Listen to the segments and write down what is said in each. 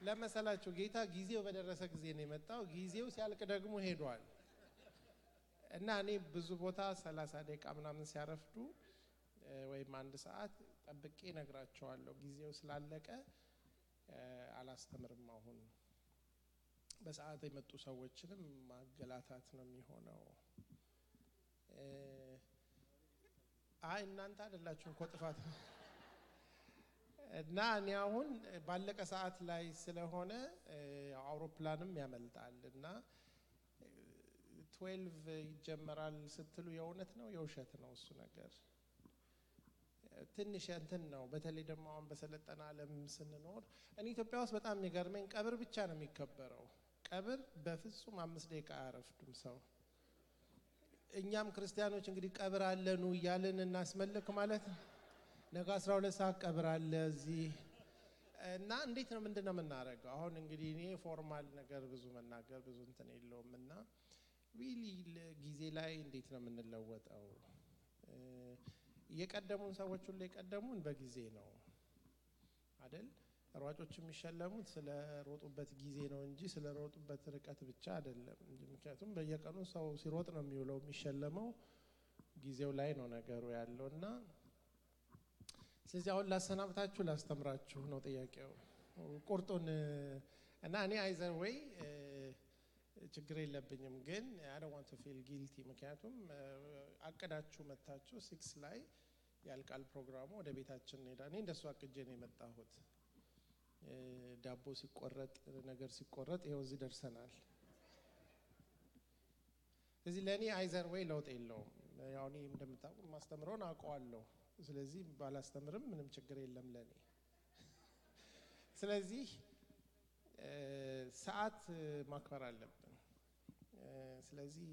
ለመሰላችሁ ጌታ ጊዜው በደረሰ ጊዜ ነው የመጣው ጊዜው ሲያልቅ ደግሞ ሄዷል እና እኔ ብዙ ቦታ 30 ደቂቃ ምናምን ሲያረፍዱ ወይም አንድ ሰዓት ጠብቄ ነግራቸዋለሁ ጊዜው ስላለቀ አላስተምርም አሁን በሰዓት የመጡ ሰዎችንም ማገላታት ነው የሚሆነው አይ እናንተ አይደላችሁም ቆጥፋት እና እኔ አሁን ባለቀ ሰዓት ላይ ስለሆነ አውሮፕላንም ያመልጣል እና 12 ይጀመራል ስትሉ የእውነት ነው የውሸት ነው እሱ ነገር ትንሽ እንትን ነው በተለይ ደግሞ አሁን በሰለጠና ዓለም ስንኖር እኔ ኢትዮጵያ ውስጥ በጣም የሚገርመኝ ቀብር ብቻ ነው የሚከበረው ቀብር በፍጹም 5 ደቂቃ አያረፍዱም ሰው እኛም ክርስቲያኖች እንግዲህ ቀብር አለኑ ይያልን እናስመልክ ማለት ነገ 12 ሰዓት ቀብር አለ እዚህ እና እንዴት ነው ምንድነው የምናረጋው አሁን እንግዲህ እኔ ፎርማል ነገር ብዙ መናገር ብዙ እንትን የለውምና ሪሊ ጊዜ ላይ እንዴት ነው የምንለወጠው የቀደሙን ሰዎች ሁሉ የቀደሙን በጊዜ ነው አይደል ሯጮች የሚሸለሙት ስለ ሮጡበት ጊዜ ነው እንጂ ስለ ሮጡበት ርቀት ብቻ አይደለም ምክንያቱም በየቀኑ ሰው ሲሮጥ ነው የሚውለው የሚሸለመው ጊዜው ላይ ነው ነገሩ ያለውና ስለዚህ አሁን ላሰናብታችሁ ላስተምራችሁ ነው ጥያቄው ቁርጡን እና እኔ አይዘር ወይ ችግር የለብኝም ግን I don't want to feel guilty ምክንያቱም አቀዳችሁ መታችሁ 6 ላይ ያልቃል ፕሮግራሙ ወደ ቤታችን እንሄዳለን እኔ እንደሱ አቅጄ ነው የመጣሁት ዳቦ ሲቆረጥ ነገር ሲቆረጥ ይሄው እዚህ ደርሰናል ስለዚህ ለኔ አይዘር ወይ ለውጥ የለውም ያው እኔ እንደምታውቁ ማስተምረውን አውቀዋለሁ ስለዚህ ባላስተምርም ምንም ችግር የለም ለኔ ስለዚህ ሰዓት ማክበር አለብን ስለዚህ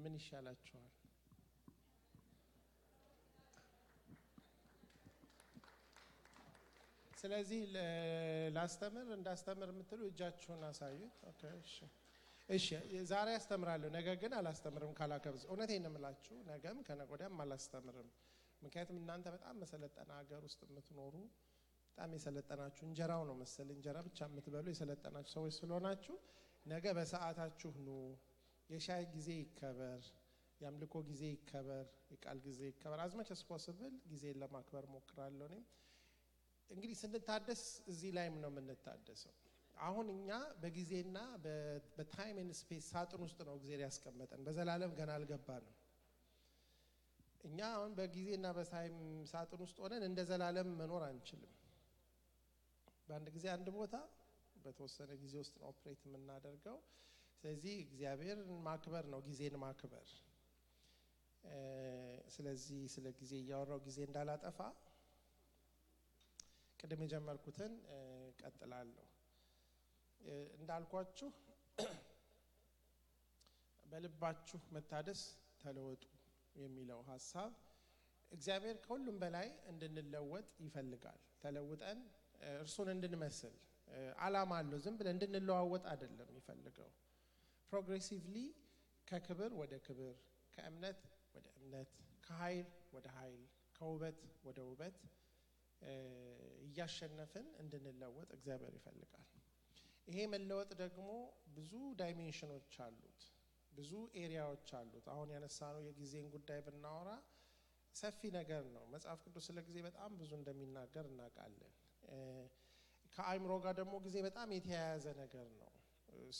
ምን ይሻላችኋል ስለዚህ ላስተምር እንዳስተምር የምትሉ እጃችሁን አሳዩት ኦኬ እሺ ዛሬ አስተምራለሁ ነገ ግን አላስተምርም ካላከብዝ እውነቴን ነው የምላችሁ ነገም ከነገወዲያም አላስተምርም ምክንያቱም እናንተ በጣም መሰለጠና ሀገር ውስጥ የምትኖሩ በጣም የሰለጠናችሁ እንጀራው ነው መሰል እንጀራ ብቻ የምትበሉ የሰለጠናችሁ ሰዎች ስለሆናችሁ ነገ በሰዓታችሁ ነው የሻይ ጊዜ ይከበር ያምልኮ ጊዜ ይከበር የቃል ጊዜ ይከበር as much as possible ጊዜ ለማክበር ሞክራለሁ እኔ እንግዲህ ስንታደስ እዚህ ላይም ነው የምንታደሰው አሁን እኛ በጊዜና በታይም ኤንድ ስፔስ ሳጥን ውስጥ ነው እግዚአብሔር ያስቀመጠን በዘላለም ገና አልገባንም እኛ አሁን በጊዜና በታይም ሳጥን ውስጥ ሆነን እንደ ዘላለም መኖር አንችልም በአንድ ጊዜ አንድ ቦታ በተወሰነ ጊዜ ውስጥ ነው ኦፕሬት የምናደርገው ስለዚህ እግዚአብሔርን ማክበር ነው ጊዜን ማክበር ስለዚህ ስለ ጊዜ ያወራው ጊዜ እንዳላጠፋ ቀደም የጀመርኩትን ቀጥላለሁ እንዳልኳችሁ በልባችሁ መታደስ ተለወጡ የሚለው ሐሳብ እግዚአብሔር ከሁሉም በላይ እንድንለወጥ ይፈልጋል ተለውጠን እርሱን እንድንመስል ዓላማ አለው ዝም ብለን እንድንለዋወጥ አይደለም ይፈልገው ፕሮግሬሲቭሊ ከክብር ወደ ክብር ከእምነት ወደ እምነት ከኃይል ወደ ኃይል ከውበት ወደ ውበት እያሸነፈን እንድንለወጥ እግዚአብሔር ይፈልጋል ይሄ መለወጥ ደግሞ ብዙ ዳይሜንሽኖች አሉት ብዙ ኤሪያዎች አሉት አሁን ያነሳነው የጊዜን ጉዳይ ብናወራ ሰፊ ነገር ነው መጽሐፍ ቅዱስ ስለ ጊዜ በጣም ብዙ እንደሚናገር እናውቃለን ከአይምሮ ጋር ደግሞ ጊዜ በጣም የተያያዘ ነገር ነው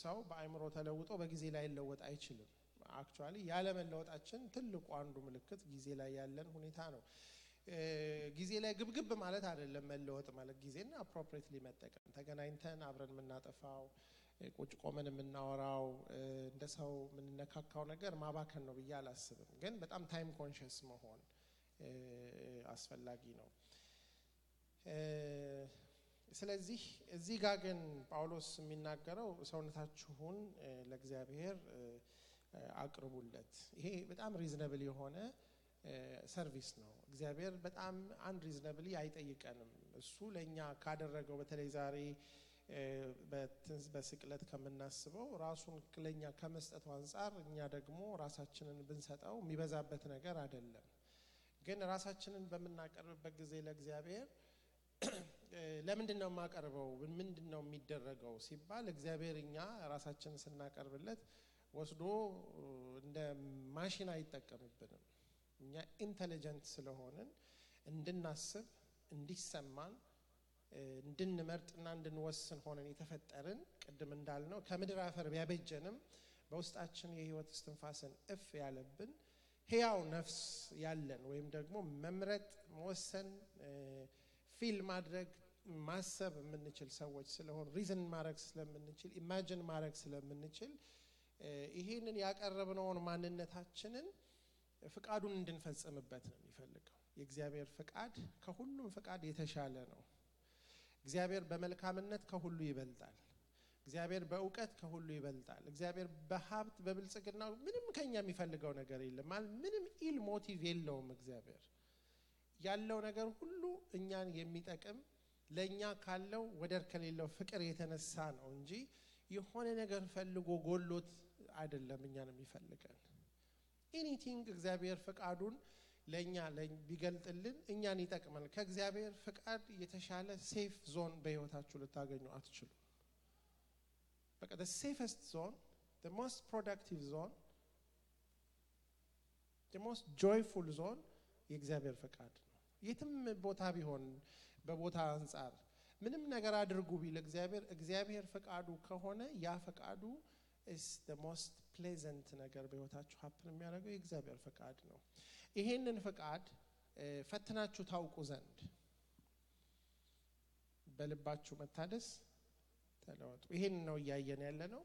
ሰው በአይምሮ ተለውጦ በጊዜ ላይ ለውጥ አይችልም አክቹአሊ ያለ መለወጣችን ትልቁ አንዱ ምልክት ጊዜ ላይ ያለን ሁኔታ ነው ጊዜ ላይ ግብግብ ማለት አይደለም መለወጥ ማለት ጊዜና አፕሮፕሪየትሊ መጠቀም ተገናኝተን አብረን የምናጠፋው ቁጭ ቆመን የምናወራው እንደ ሰው የምንነካካው ነገር ማባከን ነው ብዬ አላስብም ግን በጣም ታይም ኮንሺየስ መሆን አስፈላጊ ነው ስለዚህ እዚህ ጋር ግን ጳውሎስ የሚናገረው ሰውነታችሁን ለእግዚአብሔር አቅርቡለት ይሄ በጣም ሪዝነብል የሆነ ሰርቪስ ነው እግዚአብሔር በጣም አንሪዝነብሊ አይጠይቀንም እሱ ለኛ ካደረገው በተለይ ዛሬ በስቅለት ከምናስበው ራሱን ለኛ ከመስጠቱ አንፃር እኛ ደግሞ ራሳችንን ብንሰጠው የሚበዛበት ነገር አይደለም ግን ራሳችንን በመናቀርብበት ጊዜ ለእግዚአብሔር ለምንድን ነው የማቀርበው ምንድን ነው የሚደረገው ሲባል እግዚአብሔር እኛ ራሳችንን ስናቀርብለት ወስዶ እንደ ማሽን አይጠቀምብንም እኛ ኢንተለጀንት ስለሆነን እንድናስብ እንዲሰማን እንድንመርጥና እንድንወስን ሆነን የተፈጠርን ቅድም እንዳልነው ከምድር አፈር ቢያበጀንም በውስጣችን የህይወት እስትንፋስን እፍ ያለብን ሕያው ነፍስ ያለን ወይም ደግሞ መምረጥ መወሰን ፊል ማድረግ ማሰብ የምንችል ሰዎች ስለሆን ሪዝን ማድረግ ስለምንችል ኢማጂን ማድረግ ስለምንችል ይሄንን ያቀረብነውን ማንነታችንን ፍቃዱን እንድንፈጽምበት ነው የሚፈልገው የእግዚአብሔር ፍቃድ ከሁሉም ፍቃድ የተሻለ ነው እግዚአብሔር በመልካምነት ከሁሉ ይበልጣል እግዚአብሔር በእውቀት ከሁሉ ይበልጣል እግዚአብሔር በሀብት በብልጽግና ምንም ከኛ የሚፈልገው ነገር የለም ምንም ኢል ሞቲቭ የለውም እግዚአብሔር ያለው ነገር ሁሉ እኛን የሚጠቅም ለኛ ካለው ወደር ከሌለው ፍቅር የተነሳ ነው እንጂ የሆነ ነገር ፈልጎ ጎሎት አይደለም እኛን የሚፈልገን ኤኒቲንግ እግዚአብሔር ፍቃዱን ለኛ ቢገልጥልን እኛን ይጠቅማል ከእግዚአብሔር ፍቃድ የተሻለ ሴፍ ዞን በህይወታችሁ ልታገኙ አትችሉ በቃ the safest zone the most productive zone the most joyful zone የእግዚአብሔር ፍቃድ ነው የትም ቦታ ቢሆን በቦታ አንፃር ምንም ነገር አድርጉ ቢል እግዚአብሔር ፍቃዱ ከሆነ ያ ፍቃዱ is the most pleasant ነገር በህይወታችሁ happen የሚያደርገው የእግዚአብሔር ፍቃድ ነው ይሄንን ፍቃድ ፈትናችሁ ታውቁ ዘንድ በልባችሁ መታደስ ተለወጡ ይሄን ነው ያያየን ያለነው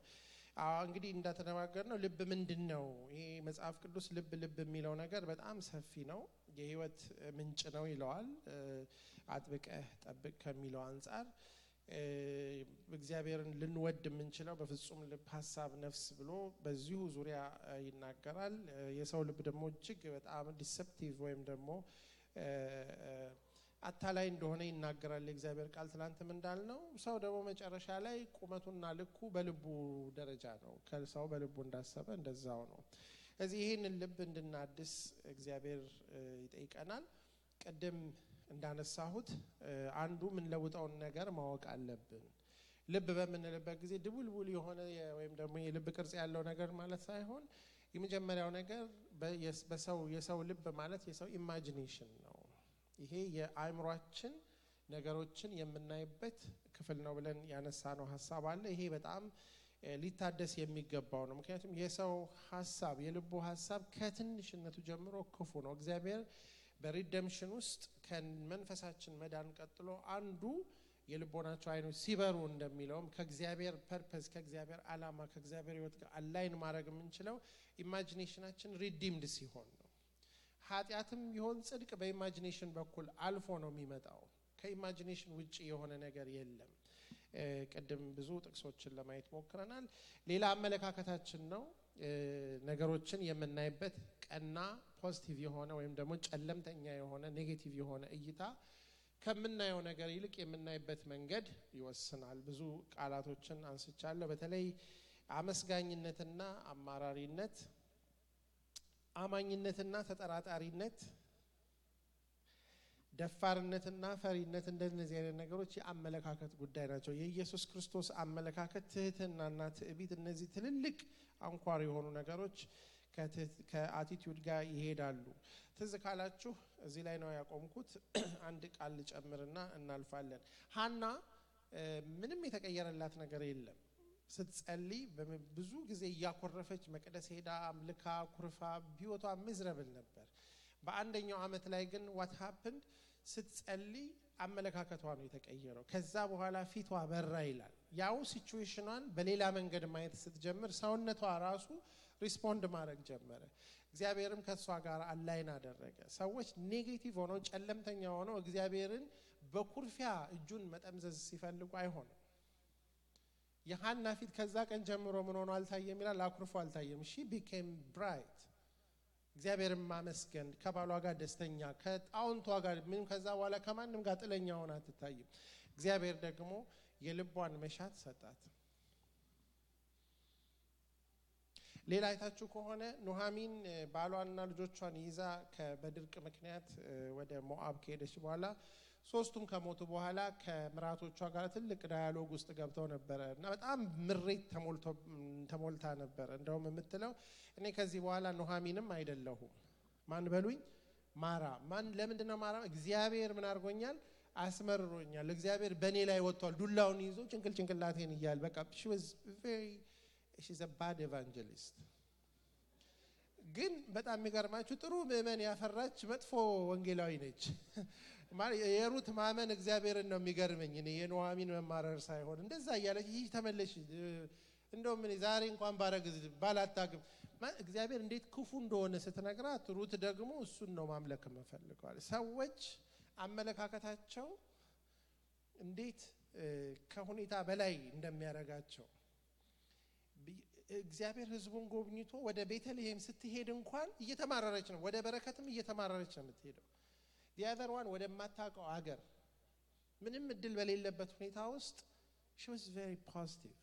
እንግዲህ እንደተነጋገርነው ልብ ምንድነው ይሄ መጽሐፍ ቅዱስ ልብ የሚለው ነገር በጣም ሰፊ ነው የህይወት ምንጭ ነው ይለዋል አጥብቀህ ጠብቅ ከሚለው አንፃር እግዚአብሔርን ልንወድ የምንችለው በፍጹም ልብ ሐሳብ ነፍስ ብሎ በዚሁ ዙሪያ ይናገራል የሰው ልብ ደግሞ እጅግ በጣም ዲሰፕቲቭ ወይም ደግሞ አታላይ እንደሆነ ይናገራል የእግዚአብሔር ቃል ትላንትም እንዳልነው ሰው ደግሞ መጨረሻ ላይ ቁመቱና ልኩ በልቡ ደረጃ ነው ከሰው በልቡ እንዳሰበ እንደዛው ነው ስለዚህ ይሄንን ልብ እንድናድስ እግዚአብሔር ይጠይቀናል ቀደም እንዳነሳሁት አንዱ ምን ለውጣው ነገር ማወቅ አለብን ልብ በመንለበት ጊዜ ድቡልቡል የሆነ ወይም ደግሞ የልብ ቅርጽ ያለው ነገር ማለት ሳይሆን የመጀመሪያው ነገር የሰው ልብ ማለት የሰው ኢማጂኔሽን ነው ይሄ የአእምሮአችን ነገሮችን የምናይበት ክፍል ነው ብለን ያነሳነው ሐሳብ አለ ይሄ በጣም ሊታደስ የሚገባው ነው ምክንያቱም የሰው ሐሳብ የልቡ ሐሳብ ከትንሽነቱ ጀምሮ ክፉ ነው እግዚአብሔር በሪደምፕሽን ውስጥ ከመንፈሳችን መዳን ቀጥሎ አንዱ የልቦናቸው አይኖች ሲበሩ እንደሚለውም ከእግዚአብሔር ፐርፐዝ ከእግዚአብሔር ዓላማ ከእግዚአብሔር ህይወት ጋር አላይን ማድረግ የምንችለው ኢማጂኔሽናችን ሪዲምድ ሲሆን ነው ኃጢያትም ይሆን ጽድቅ በኢማጂኔሽን በኩል አልፎ ነው የሚመጣው ከኢማጂኔሽን ውጪ የሆነ ነገር የለም ቀደም ብዙ ጥቅሶችን ለማየት ሞክረናል ሌላ አመለካከታችን ነው ነገሮችን የምናይበት ቀና ፖዚቲቭ የሆነ ወይም ደግሞ ጨለምተኛ የሆነ ኔጌቲቭ የሆነ እይታ ከምናየው ነገር ይልቅ የምናይበት መንገድ ይወስናል ብዙ ቃላቶችን አንስቻለሁ በተለይ አመስጋኝነትና አማራሪነት አማኝነትና ተጠራጣሪነት ደፋርነትና ፈሪነት እንደነዚህ አይነት ነገሮች የአመለካከት ጉዳይ ናቸው የኢየሱስ ክርስቶስ አመለካከት ትህትናና ትዕቢት እነዚህ ትልልቅ አንኳር የሆኑ ነገሮች ከአቲቲዩድ ጋር ይሄዳሉ ትዝ ካላችሁ እዚህ ላይ ነው ያቆምኩት አንድ ቃል ጨምርና እናልፋለን ሃና ምንም የተቀየረላት ነገር የለም ስትጸልይ ብዙ ጊዜ ያኮረፈች መቅደስ ሄዳ አምልካ ኩርፋ ቢወቷ ምዝረብል ነበር በአንደኛው አመት ላይ ግን what happened ስትጸልይ አመለካከቷ ነው የተቀየረው ከዛ በኋላ ፊቷ በራ ይላል ያው ሲቹዌሽኗን በሌላ መንገድ ማየት ስትጀምር ሰውነቷ ራሱ ሪስፖንድ ማድረግ ጀመረ እግዚአብሔርም ከሷ ጋር አላይን አደረገ ሰዎች ኔጌቲቭ ሆነው ጨለምተኛ ሆነው እግዚአብሔርን በኩርፊያ እጁን መጠምዘዝ ሲፈልጉ አይሆንም የሃና ፊት ከዛ ቀን ጀምሮ ምን ሆኖ አልታየም ይላል አኩርፎ አልታየም she became bright እግዚአብሔርን ማመስገን ከባሏ ጋር ደስተኛ ከጣውንቷ ጋር ምንም ከዛ በኋላ ከማንም ጋር ጥለኛ ሆና አትታይም እግዚአብሔር ደግሞ የልቧን መሻት ሰጣት ሌላ አይታችሁ ከሆነ ኑሃሚን ባሏንና ልጆቿን ይዛ በድርቅ ምክንያት ወደ ሞአብ ከሄደች በኋላ ሶስቱም ከሞቱ በኋላ ከምራቶቿ ጋር ትልቅ ዳያሎግ ውስጥ ገብተው ነበር እና በጣም ምሬት ተሞልታ ነበር። እንደውም የምትለው እኔ ከዚህ በኋላ ኑሃሚንም አይደለሁም ማን በሉኝ ማራ ማን ለምንድነው ማራ እግዚአብሔር ምን አድርጎኛል አስመርሮኛል እግዚአብሔር በኔ ላይ ወጥቷል ዱላውን ይዞ ጭንቅላቴን ይያል በቃ she's a bad evangelist ግን በጣም የሚገርማችሁ ጥሩ ምእመን ያፈራች መጥፎ ወንጌላዊ ነች ማለት የሩት ማመን እግዚአብሔርን ነው የሚገርመኝ እኔ የኑሃሚን መማረር ሳይሆን እንደዛ ያለች ይህ ተመለሽ እንደውም እኔ ዛሬ እንኳን ባረግዝ ባላታግም እግዚአብሔር እንዴት ክፉ እንደሆነ ስትነግራት ሩት ደግሞ እሱን ነው ማምለክ የምፈልገው ሰዎች አመለካከታቸው እንዴት ከሁኔታ በላይ እንደሚያረጋቸው እግዚአብሔር ህዝቡን ጎብኝቶ ወደ ቤተልሔም ስትሄድ እንኳን እየተማረረች ነው ወደ በረከትም እየተማረረች ነው የምትሄደው the other one ወደ ማታቀው አገር ምንም እድል በሌለበት ሁኔታ ውስጥ she was very positive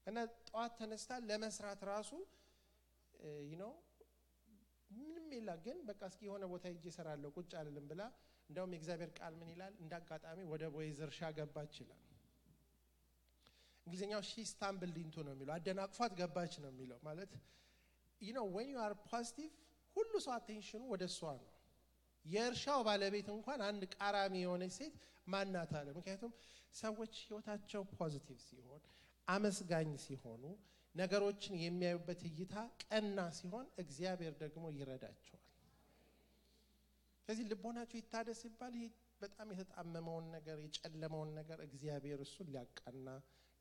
እና ጧት ተነስታ ለመስራት ራሱ you know ምንም ይላ ግን በቃ እስኪ የሆነ ቦታ ሄጄ እሰራለሁ ቁጭ አልልም ብላ እንደውም የእግዚአብሔር ቃል ምን ይላል እንዳጋጣሚ ወደ ቦዔዝ እርሻ ገባች ይላል እንግሊዘኛው she stumbled into ነው የሚለው አደናቅፏት ገባች ነው የሚለው ማለት you know when you are positive ሁሉ ሰው attention ወደ እሷ ነው የእርሻው ባለቤት እንኳን አንድ ቃራሚ የሆነ ሴት ማናት አለ ምክንያቱም ሰዎች ህይወታቸው ፖዚቲቭ ሲሆን አመስጋኝ ሲሆኑ ነገሮችን የሚያዩበት እይታ ቀና ሲሆን እግዚአብሔር ደግሞ ይረዳቸዋል ስለዚህ ልቦናቸው ይታደስ ይባል ይሄ በጣም የተጣመመውን ነገር የጨለመውን ነገር እግዚአብሔር እሱን ሊያቃና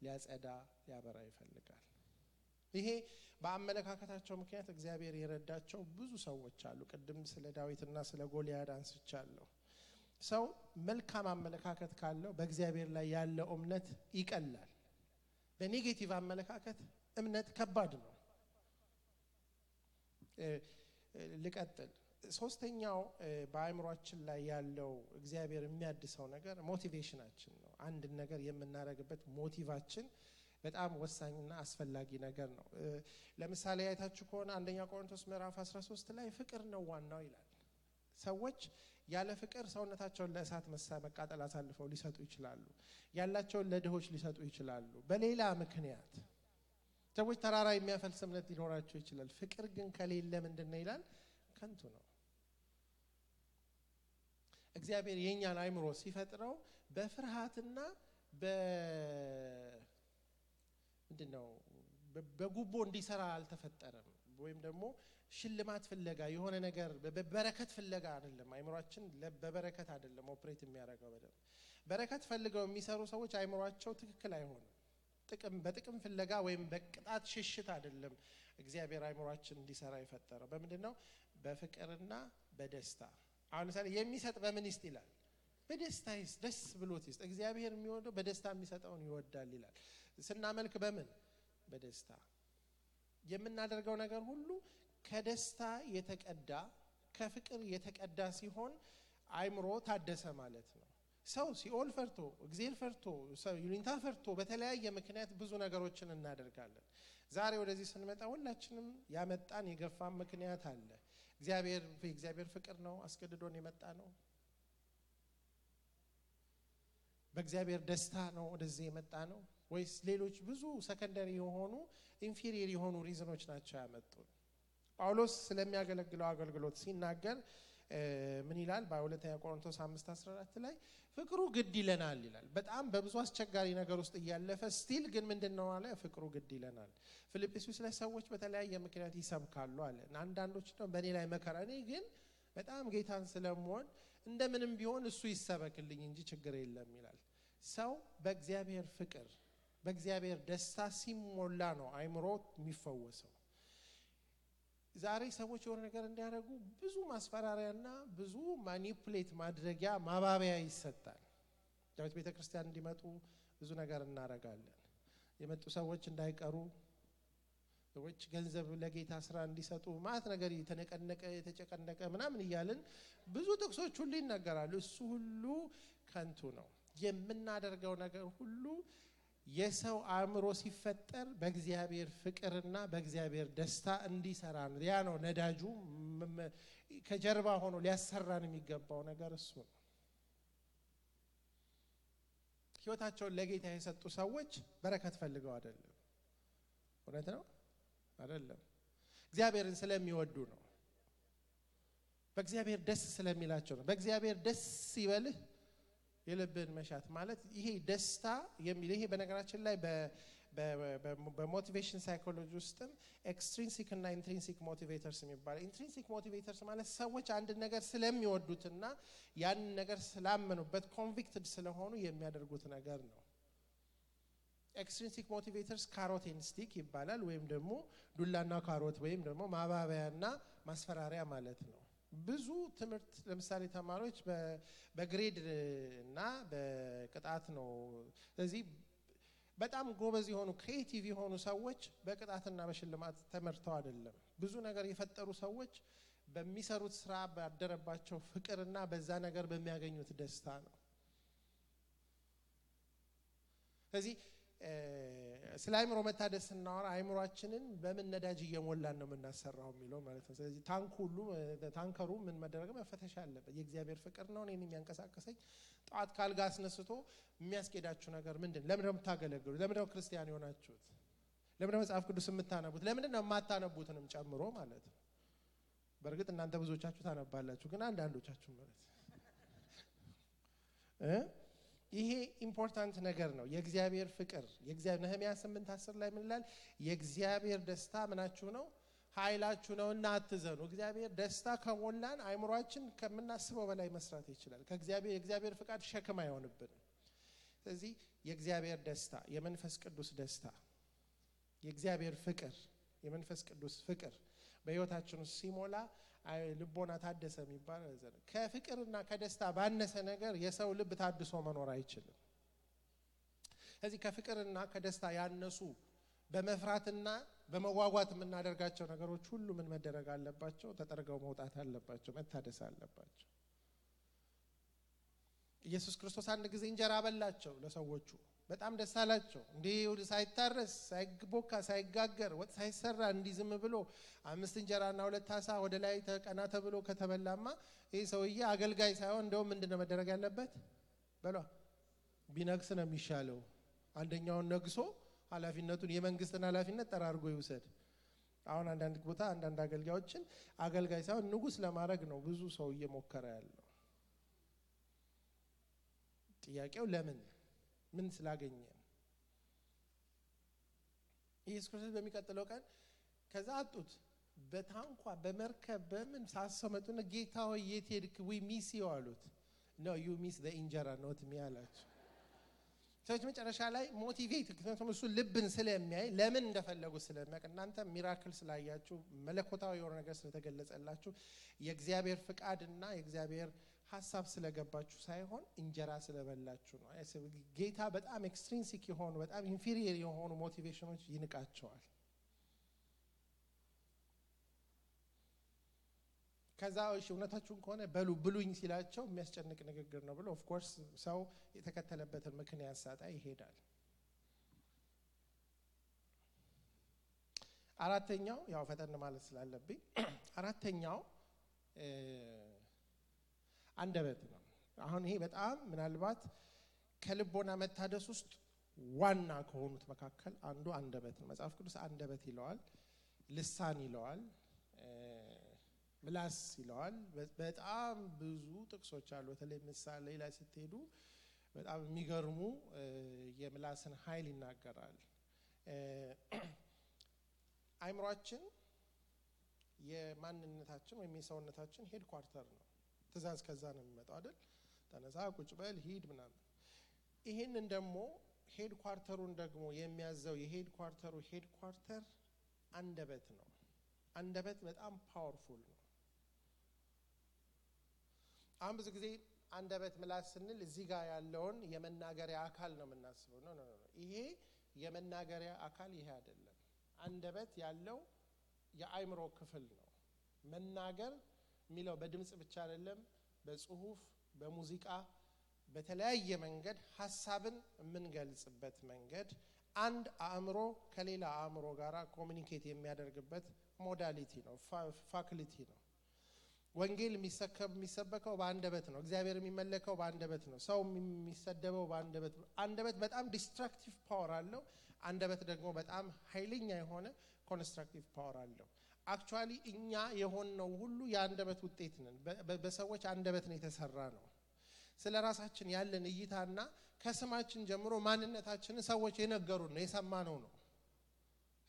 ሊያጸዳ ሊያበራ ይፈልጋል ይሄ በአመለካከታቸው ምክንያት እግዚአብሔር የረዳቸው ብዙ ሰዎች አሉ ቅድም ስለ ዳዊትና ስለ ጎልያድ አንስቻለሁ ሰው መልካም አመለካከት ካለው በእግዚአብሔር ላይ ያለው እምነት ይቀላል በኔጌቲቭ አመለካከት እምነት ከባድ ነው ልቀጥል ሶስተኛው በአእምሮአችን ላይ ያለው እግዚአብሔር የሚያድሰው ነገር ሞቲቬሽናችን ነው አንድ ነገር የምናረግበት ሞቲቫችን በጣም ወሳኝና አስፈላጊ ነገር ነው ለምሳሌ አይታችሁ ከሆነ አንደኛ ቆሮንቶስ ምዕራፍ 13 ላይ ፍቅር ነው ዋናው ይላል ሰዎች ያለ ፍቅር ሰውነታቸውን ለእሳት መቃጠል አሳልፈው ሊሰጡ ይችላሉ ያላቸውን ለድሆች ሊሰጡ ይችላሉ በሌላ ምክንያት ሰዎች ተራራ የሚያፈልስ እምነት ሊኖራቸው ይችላል ፍቅር ግን ከሌለ ምንድነው ይላል ከንቱ ነው እግዚአብሔር የኛን አእምሮ ሲፈጥረው በፍርሃትና ምንድነው በጉቦ እንዲሰራ አልተፈጠረም ወይም ደግሞ ሽልማት ፍለጋ የሆነ ነገር በበረከት ፍለጋ አይደለም አእምሮአችን በበረከት አይደለም ኦፕሬት የሚያደርገው በረከት ፈልገው የሚሰሩ ሰዎች አእምሮአቸው ትክክል አይሆንም በጥቅም ፍለጋ ወይም በቅጣት ሽሽት አይደለም እግዚአብሔር አእምሮአችን እንዲሰራ የፈጠረው በምንድነው በፍቅርና በደስታ አሁን ለምሳሌ የሚሰጥ በምን ይስጥ ይላል በደስታ ይስጥ ደስ ብሎት ይስጥ እግዚአብሔር የሚወደው በደስታ የሚሰጠውን ይወዳል ይላል ስናመልክ በምን በደስታ የምናደርገው ነገር ሁሉ ከደስታ የተቀዳ ከፍቅር የተቀዳ ሲሆን አእምሮ ታደሰ ማለት ነው ሰው ሲኦል ፈርቶ እግዚአብሔር ፈርቶ ሰው ይሉኝታ ፈርቶ በተለያየ ምክንያት ብዙ ነገሮችን እናደርጋለን ዛሬ ወደዚህ ስንመጣ ሁላችንም ያመጣን የገፋን ምክንያት አለ እግዚአብሔር ፍቅር ነው አስገድዶን የመጣ ነው በእግዚአብሔር ደስታ ነው ወደዚህ የመጣ ነው ወይስ ሌሎች ብዙ ሰከንደሪ የሆኑ ኢንፌሪየር የሆኑ ሪዝኖች ናቸው ያመጡን ጳውሎስ ስለሚያገለግለው አገልግሎት ሲናገር ምን ይላል በሁለተኛ ቆሮንቶስ 5:14 ላይ ፍቅሩ ግድ ይለናል ይላል በጣም በብዙ አስቸጋሪ ነገር ውስጥ ያለፈ ስቲል ግን ምንድነው አለ ፍቅሩ ግድ ይለናል ፊልጵስዩስ ላይ ሰዎች በተለያየ ምክንያት ይሰብካሉ አለ አንዳንዶች ነው በእኔ ላይ መከራ እኔ ግን በጣም ጌታን ስለምወድ እንደምንም ቢሆን እሱ ይሰበክልኝ እንጂ ችግር የለም ይላል ሰው በእግዚአብሔር ፍቅር በእግዚአብሔር ደስታ ሲሞላ ነው አእምሮ የሚፈወሰው ዛሬ ሰዎች የሆነ ነገር እንዲያደርጉ ብዙ ማስፈራሪያና ብዙ ማኒፑሌት ማድረጊያ ማባበያ ይሰጣል ዳዊት ቤተክርስቲያን እንዲመጡ ብዙ ነገር እናረጋለን የመጡ ሰዎች እንዳይቀሩ ሰዎች ገንዘብ ለጌታ ስራ እንዲሰጡ ማለት ነገር የተጨቀነቀ ምናምን ይያልን ብዙ ጥቅሶች ሁሉ ይናገራሉ እሱ ሁሉ ከንቱ ነው የምናደርገው ነገር ሁሉ የሰው አእምሮ ሲፈጠር በእግዚአብሔር ፍቅርና በእግዚአብሔር ደስታ እንዲሰራ ነው ያ ነው ነዳጁ ከጀርባ ሆኖ ሊያሰራን የሚገባው ነገር እሱ ነው ህይወታቸውን ለጌታ የሰጡ ሰዎች በረከት ፈልገው አይደለም። እውነት ነው አይደለም? እግዚአብሔርን ስለሚወዱ ነው። በእግዚአብሔር ደስ ስለሚላቸው ነው። በእግዚአብሔር ደስ ይበልህ የልብን መሻት ማለት ይሄ ደስታ የሚል ይሄ በነገራችን ላይ በሞቲቬሽን ሳይኮሎጂ ውስጥም ኤክስትሪንሲክ እና ኢንትሪንሲክ ሞቲቬተርስ የሚባለው ኢንትሪንሲክ ሞቲቬተርስ ማለት ሰዎች አንድ ነገር ስለሚወዱትና ያን ነገር ስላመኑበት ኮንቪክትድ ስለሆኑ የሚያደርጉት ነገር ነው። ኤክስትሪንሲክ ሞቲቬተርስ ካሮት ኤንድ ስቲክ ይባላል ወይም ደግሞ ዱላና ካሮት ወይም ደግሞ ማባበያና ማስፈራሪያ ማለት ነው። ብዙ ትምህርት ለምሳሌ ተማሪዎች በግሬድ እና በቅጣት ነው። ስለዚህ በጣም ጎበዝ የሆኑ ክሬቲቭ የሆኑ ሰዎች በቅጣትና በሽልማት ተመርተው አይደለም። ብዙ ነገር የፈጠሩ ሰዎች በሚሰሩት ስራ ባደረባቸው ፍቅርና በዛ ነገር በሚያገኙት ደስታ ነው። ስለዚህ ስለ አይምሮ መታደስ እናወራ አይምሮአችንን በምን ነዳጅ እየሞላን ነው የምናሰራው የሚለው ማለት ነው። ስለዚህ ታንከሩ ምን መደረግ መፈተሽ አለበት። የእግዚአብሔር ፍቅር ነው እኔን የሚያንቀሳቀሰኝ። ጧት ካልጋ አስነስቶ የሚያስኬዳችሁ ነገር ምንድን? ለምን ነው የምታገለግሉት? ለምን ነው ክርስቲያን የሆናችሁት? ለምን ነው መጽሐፍ ቅዱስ የምታነቡት? ለምን ነው የማታነቡትንም ጨምሮ ማለት ነው። በእርግጥ እናንተ ብዙዎቻችሁ ታነባላችሁ፣ ግን አንዳንዶቻችሁ ማለት ይሄ ኢምፖርታንት ነገር ነው። የእግዚአብሔር ፍቅር የእግዚአብሔር ነህምያ 8:10 ላይ ምን ይላል? የእግዚአብሔር ደስታ ምናችሁ ነው? ኃይላችሁ ነውና አትዘኑ። እግዚአብሔር ደስታ ከሞላን አይምሮአችን ከምናስበው በላይ መስራት ይችላል። የእግዚአብሔር ፍቃድ ሸክም አይሆንብንም። ስለዚህ የእግዚአብሔር ደስታ፣ የመንፈስ ቅዱስ ደስታ፣ የእግዚአብሔር ፍቅር፣ የመንፈስ ቅዱስ ፍቅር በህይወታችን ውስጥ ሲሞላ ልቦና ታደሰ የሚባል ዘለ ከፍቅርና ከደስታ ባነሰ ነገር የሰው ልብ ታድሶ መኖር አይችልም። ስለዚህ ከፍቅርና ከደስታ ያነሱ በመፍራትና በመጓጓት የምናደርጋቸው ነገሮች ሁሉ ምን መደረግ አለባቸው? ተጠርገው መውጣት አለባቸው፣ መታደስ አለባቸው። ኢየሱስ ክርስቶስ አንድ ጊዜ እንጀራ በላቸው ለሰዎቹ። በጣም ደስ አላቸው። እንዲህ ሳይታረስ ሳይቦካ ሳይጋገር ወጥ ሳይሰራ እንዲህ ዝም ብሎ 5 እንጀራና 2 ዓሣ ወደ ላይ ተቀና ተብሎ ከተበላማ ይሄ ሰውዬ አገልጋይ ሳይሆን እንደውም ምንድነው መደረግ ያለበት? በሏ ቢነግስ ነው የሚሻለው። አንደኛውን ነግሶ ኃላፊነቱን የመንግስትን ኃላፊነት ጠራርጎ ይውሰድ። አሁን አንዳንድ ቦታ አንዳንድ አገልጋዮችን አገልጋይ ሳይሆን ንጉስ ለማድረግ ነው ብዙ ሰው እየሞከረ ያለው። ጥያቄው ለምን? ምን ስላገኘ? ኢየሱስ ክርስቶስ በሚቀጥለው ቀን ከዛ አጡት። በታንኳ በመርከብ በምን ሳሰመጡና ጌታ ሆይ የት ሄድክ? ዊ ሚስ ዩ አሉት። ኖ ዩ ሚስ ዘ እንጀራ ኖት ሚ አላቸው። ሰዎች መጨረሻ ላይ ሞቲቬት ምክንያቱም እሱ ልብን ስለሚያይ ለምን እንደፈለጉ ስለሚያውቅ እናንተ ሚራክል ስላያችሁ መለኮታዊ የሆነ ነገር ስለተገለጸላችሁ የእግዚአብሔር ፍቃድና የእግዚአብሔር ሐሳብ ስለገባችሁ ሳይሆን እንጀራ ስለበላችሁ ነው። ጌታ በጣም ኤክስትሪንሲክ የሆኑ በጣም ኢንፌሪየር የሆኑ ሞቲቬሽኖች ይንቃቸዋል። ከዛ እሺ እውነታችሁን ከሆነ በሉ ብሉኝ ሲላቸው የሚያስጨንቅ ንግግር ነው ብሎ ኦፍ ኮርስ ሰው የተከተለበትን ምክንያት ሳጣ ይሄዳል። አራተኛው ያው ፈጠን ማለት ስላለብኝ አራተኛው አንደበት ነው። አሁን ይሄ በጣም ምናልባት ከልቦና መታደስ ውስጥ ዋና ከሆኑት መካከል አንዱ አንደበት ነው። መጽሐፍ ቅዱስ አንደበት ይለዋል፣ ልሳን ይለዋል፣ ምላስ ይለዋል። በጣም ብዙ ጥቅሶች አሉ። በተለይ ምሳሌ ላይ ስትሄዱ በጣም የሚገርሙ የምላስን ኃይል ይናገራል። አይምሮአችን የማንነታችን ወይም የሰውነታችን ሄድ ኳርተር ነው። ትእዛዝ ከዛ ነው የሚመጣው አይደል? ተነሳ፣ ቁጭ በል፣ ሂድ ምናምን። ይሄንን ደግሞ ሄድ ኳርተሩን ደግሞ የሚያዘው የሄድ ኳርተሩ ሄድ ኳርተር አንደበት ነው። አንደበት በጣም ፓወርፉል ነው። አሁን ብዙ ጊዜ አንደበት ምላስ ስንል እዚህ ጋር ያለውን የመናገሪያ አካል ነው የምናስበው። ኖ ኖ ኖ፣ ይሄ የመናገሪያ አካል ይሄ አይደለም። አንደበት ያለው የአይምሮ ክፍል ነው። መናገር የሚለው በድምጽ ብቻ አይደለም፣ በጽሁፍ፣ በሙዚቃ፣ በተለያየ መንገድ ሐሳብን የምንገልጽበት መንገድ አንድ አእምሮ ከሌላ አእምሮ ጋራ ኮሙኒኬት የሚያደርግበት ሞዳሊቲ ነው፣ ፋክሊቲ ነው። ወንጌል የሚሰበከው በአንደበት ነው። እግዚአብሔር የሚመለከው በአንደበት ነው። ሰው የሚሰደበው በአንደበት ነው። አንደበት በጣም ዲስትራክቲቭ ፓወር አለው። አንደበት ደግሞ በጣም ኃይለኛ የሆነ ኮንስትራክቲቭ ፓወር አለው። አክቹአሊ እኛ የሆነው ሁሉ የአንደበት ውጤት ነን። በሰዎች አንደበት ነው የተሰራ ነው። ስለራሳችን ያለን እይታና ከስማችን ጀምሮ ማንነታችንን ሰዎች የነገሩን ነው፣ የሰማነው ነው።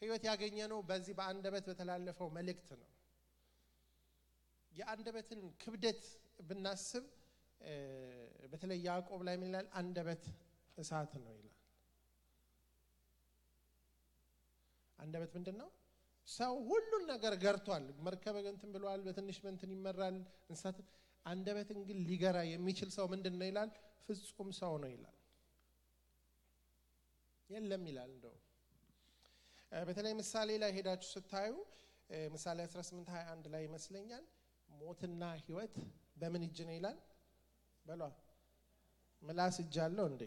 ህይወት ያገኘነው በዚህ በአንደበት በተላለፈው መልእክት ነው። የአንደበትን ክብደት ብናስብ በተለይ ያዕቆብ ላይ ምን ይላል? አንደበት እሳት ነው ይላል። አንደበት ምንድነው? ሰው ሁሉን ነገር ገርቷል። መርከብ እንትን ብሏል፣ በትንሽ እንትን ይመራል እንስሳት። አንደበትን ግን ሊገራ የሚችል ሰው ምንድነው ይላል? ፍጹም ሰው ነው ይላል። የለም ይላል። እንደው በተለይ ምሳሌ ላይ ሄዳችሁ ስታዩ ምሳሌ 18:21 ላይ ይመስለኛል ሞትና ህይወት በምን እጅ ነው ይላል? በሏ ምላስ እጅ አለው እንዴ?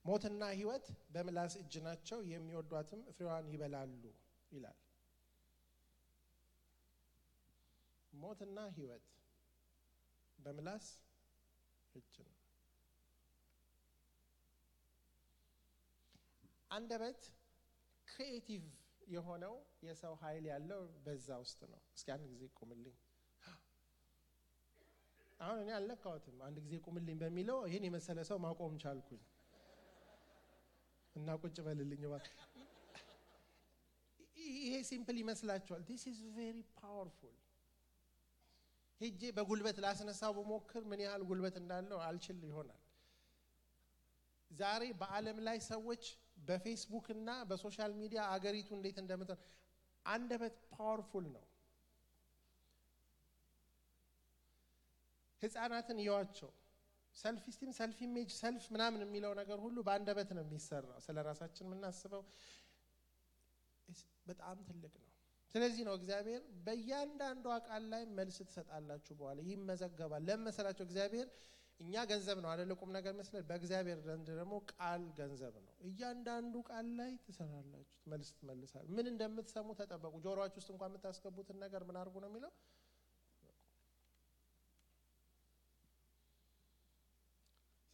ሞትና ህይወት በምላስ እጅ ናቸው፣ የሚወዷትም ፍሬዋን ይበላሉ ይላል። ሞትና ህይወት በምላስ እጅ ነው። አንደበት ክሪኤቲቭ የሆነው የሰው ኃይል ያለው በዛ ውስጥ ነው። እስኪ አንድ ጊዜ ቁምልኝ። አሁን እኔ አልነካሁትም። አንድ ጊዜ ቁምልኝ በሚለው ይሄን የመሰለ ሰው ማቆም ቻልኩኝ እና ቁጭ በልልኝ ማለት። ይሄ ሲምፕል ይመስላችኋል? this is very powerful። ሄጄ በጉልበት ላስነሳው በሞክር ምን ያህል ጉልበት እንዳለው አልችል ይሆናል። ዛሬ በአለም ላይ ሰዎች በፌስቡክ እና በሶሻል ሚዲያ አገሪቱ እንዴት እንደምትሆን አንደበት ፓወርፉል ነው። ህፃናትን ይዋቸው ሰልፍ ስቲም፣ ሰልፍ ኢሜጅ፣ ሰልፍ ምናምን የሚለው ነገር ሁሉ በአንደበት ነው የሚሰራው። ስለራሳችን የምናስበው በጣም ትልቅ ነው። ስለዚህ ነው እግዚአብሔር በእያንዳንዱ ቃል ላይ መልስ ትሰጣላችሁ በኋላ ይመዘገባል። ለመሰላችሁ እግዚአብሔር እኛ ገንዘብ ነው አይደል? ቁም ነገር መስለ በእግዚአብሔር ዘንድ ደግሞ ቃል ገንዘብ ነው። እያንዳንዱ ቃል ላይ ትሰራላችሁ፣ መልስ ትመልሳላችሁ። ምን እንደምትሰሙ ተጠበቁ። ጆሮአችሁ ውስጥ እንኳን የምታስገቡትን ነገር ምን አድርጉ ነው የሚለው?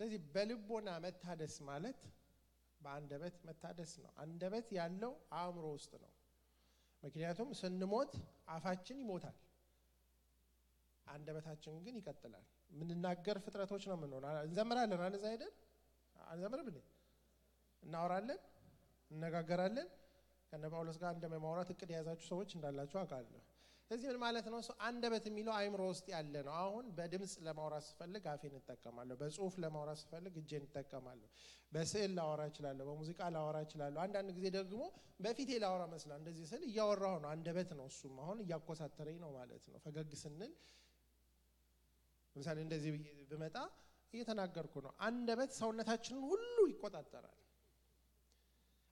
ስለዚህ በልቦና መታደስ ማለት በአንደበት መታደስ ነው። አንደበት ያለው አእምሮ ውስጥ ነው። ምክንያቱም ስንሞት አፋችን ይሞታል፣ አንደበታችን ግን ይቀጥላል። ምንናገር ፍጥረቶች ነው ምን ሆነ? እንዘምራለን አይደል? አይደል? አንዘምርም እንዴ? እናወራለን፣ እንነጋገራለን። ከነ ጳውሎስ ጋር እንደማውራት እቅድ የያዛችሁ ሰዎች እንዳላችሁ አውቃለሁ። ስለዚህ ምን ማለት ነው? አንደበት የሚለው አእምሮ ውስጥ ያለ ነው። አሁን በድምጽ ለማውራት ስፈልግ አፌን እጠቀማለሁ፣ በጽሁፍ ለማውራት ስፈልግ እጄን እጠቀማለሁ፣ በስዕል ላወራ እችላለሁ፣ በሙዚቃ ላወራ እችላለሁ። አንዳንድ ጊዜ ደግሞ በፊቴ ላወራ መስላ እንደዚህ ስል እያወራሁ ነው። አንደበት ነው እሱም። አሁን እያኮሳተረኝ ነው ማለት ነው። ፈገግ ስንል ለምሳሌ እንደዚህ ብመጣ እየተናገርኩ ነው። አንደበት ሰውነታችንን ሁሉ ይቆጣጠራል።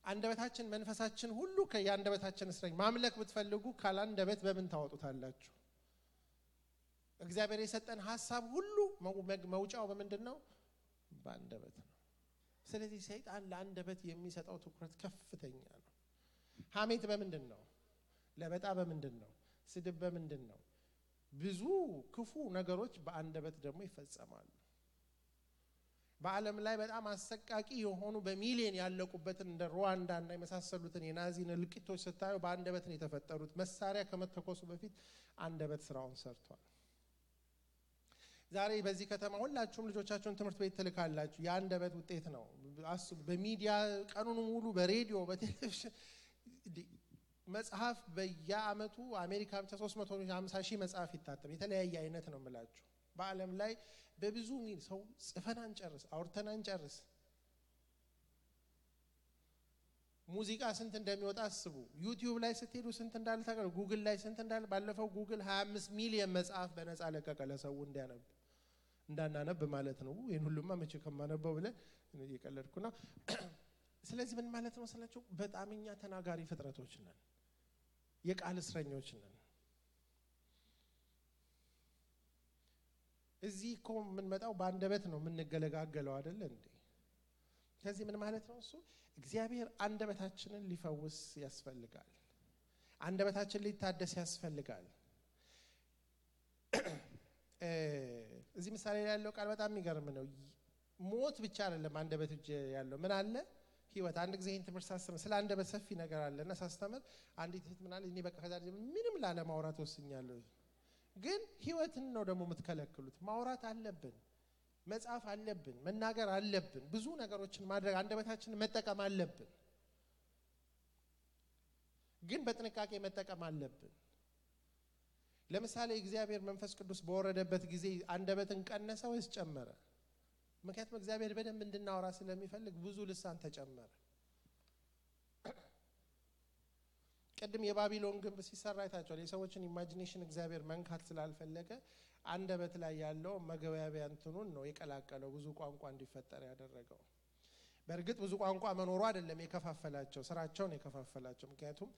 አንደበታችን መንፈሳችን ሁሉ ከያንደበታችን እስረኝ። ማምለክ ብትፈልጉ ካላንደበት በምን ታወጡታላችሁ? እግዚአብሔር የሰጠን ሐሳብ ሁሉ መውጫው በምንድነው? በአንደበት ነው። ስለዚህ ሰይጣን ለአንደበት የሚሰጠው ትኩረት ከፍተኛ ነው። ሐሜት በምንድነው? ለበጣ በምንድነው? ስድብ በምንድነው? ብዙ ክፉ ነገሮች በአንደበት ደግሞ ይፈጸማሉ። በዓለም ላይ በጣም አሰቃቂ የሆኑ በሚሊዮን ያለቁበትን እንደ ሩዋንዳ እና የመሳሰሉትን የናዚን እልቂቶች ስታዩ በአንደበት ነው የተፈጠሩት። መሳሪያ ከመተኮሱ በፊት አንደበት ስራውን ሰርቷል። ዛሬ በዚህ ከተማ ሁላችሁም ልጆቻችሁን ትምህርት ቤት ትልካላችሁ። የአንደበት ውጤት ነው። አስቡ። በሚዲያ ቀኑን ሙሉ በሬዲዮ በቴሌቪዥን መጽሐፍ በየአመቱ አሜሪካ ብቻ 350 ሺህ መጽሐፍ ይታተም። የተለያየ አይነት ነው የምላችሁ። በዓለም ላይ በብዙ ሚል ሰው ጽፈን አንጨርስ፣ አውርተን አንጨርስ። ሙዚቃ ስንት እንደሚወጣ አስቡ። ዩቲዩብ ላይ ስትሄዱ ስንት እንዳለ ታውቃላችሁ። ጉግል ላይ ስንት እንዳለ። ባለፈው ጉግል 25 ሚሊዮን መጽሐፍ በነፃ ለቀቀ ለሰው እንዲያነብ እንዳናነብ ማለት ነው። ይሄን ሁሉማ መቼ ከማነበው ብለን እየቀለድኩ ነው። ስለዚህ ምን ማለት ነው ስላችሁ በጣም እኛ ተናጋሪ ፍጥረቶች ነን፣ የቃል እስረኞች ነን። እዚህ እኮ የምንመጣው በአንደበት ነው የምንገለጋገለው አይደል እንዴ? ከዚህ ምን ማለት ነው እሱ እግዚአብሔር አንደበታችንን ሊፈውስ ያስፈልጋል አንደበታችን ሊታደስ ያስፈልጋል እዚህ ምሳሌ ላይ ያለው ቃል በጣም የሚገርም ነው ሞት ብቻ አይደለም አንደበት እጅ ያለው ምን አለ ህይወት አንድ ጊዜ ይሄን ትምህርት ሳስተምር ስለ አንደበት ሰፊ ነገር አለና ሳስተምር አንዲት እህት ምን አለ እኔ በቃ ከዛ ምንም ላለማውራት ወስኛለሁ ግን ህይወትን ነው ደግሞ የምትከለክሉት ማውራት አለብን መጻፍ አለብን መናገር አለብን ብዙ ነገሮችን ማድረግ አንደበታችንን መጠቀም አለብን ግን በጥንቃቄ መጠቀም አለብን ለምሳሌ እግዚአብሔር መንፈስ ቅዱስ በወረደበት ጊዜ አንደበትን ቀነሰ ወይስ ጨመረ ምክንያቱም እግዚአብሔር በደንብ እንድናወራ ስለሚፈልግ ብዙ ልሳን ተጨመረ ቀድም የባቢሎን ግንብ ሲሰራ አይታችኋል የሰዎችን ኢማጂኔሽን እግዚአብሔር መንካት ስላልፈለገ አንደበት ላይ ያለው መገበያቢያ እንትኑን ነው የቀላቀለው ብዙ ቋንቋ እንዲፈጠር ያደረገው በእርግጥ ብዙ ቋንቋ መኖሩ አይደለም የከፋፈላቸው ስራቸውን የከፋፈላቸው ምክንያቱም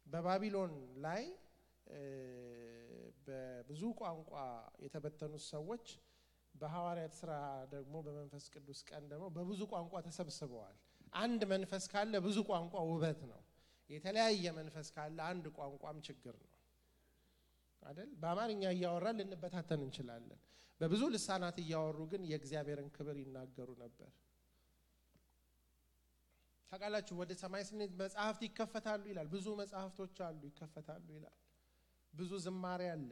በባቢሎን ላይ በብዙ ቋንቋ የተበተኑ ሰዎች በሐዋርያት ሥራ ደግሞ በመንፈስ ቅዱስ ቀን ደግሞ በብዙ ቋንቋ ተሰብስበዋል አንድ መንፈስ ካለ ብዙ ቋንቋ ውበት ነው የተለያየ መንፈስ ካለ አንድ ቋንቋም ችግር ነው አይደል በአማርኛ እያወራን ልንበታተን እንችላለን በብዙ ልሳናት እያወሩ ግን የእግዚአብሔርን ክብር ይናገሩ ነበር ታውቃላችሁ ወደ ሰማይ ስንሄድ መጽሐፍት ይከፈታሉ ይላል ብዙ መጽሐፍቶች አሉ ይከፈታሉ ይላል ብዙ ዝማሬ አለ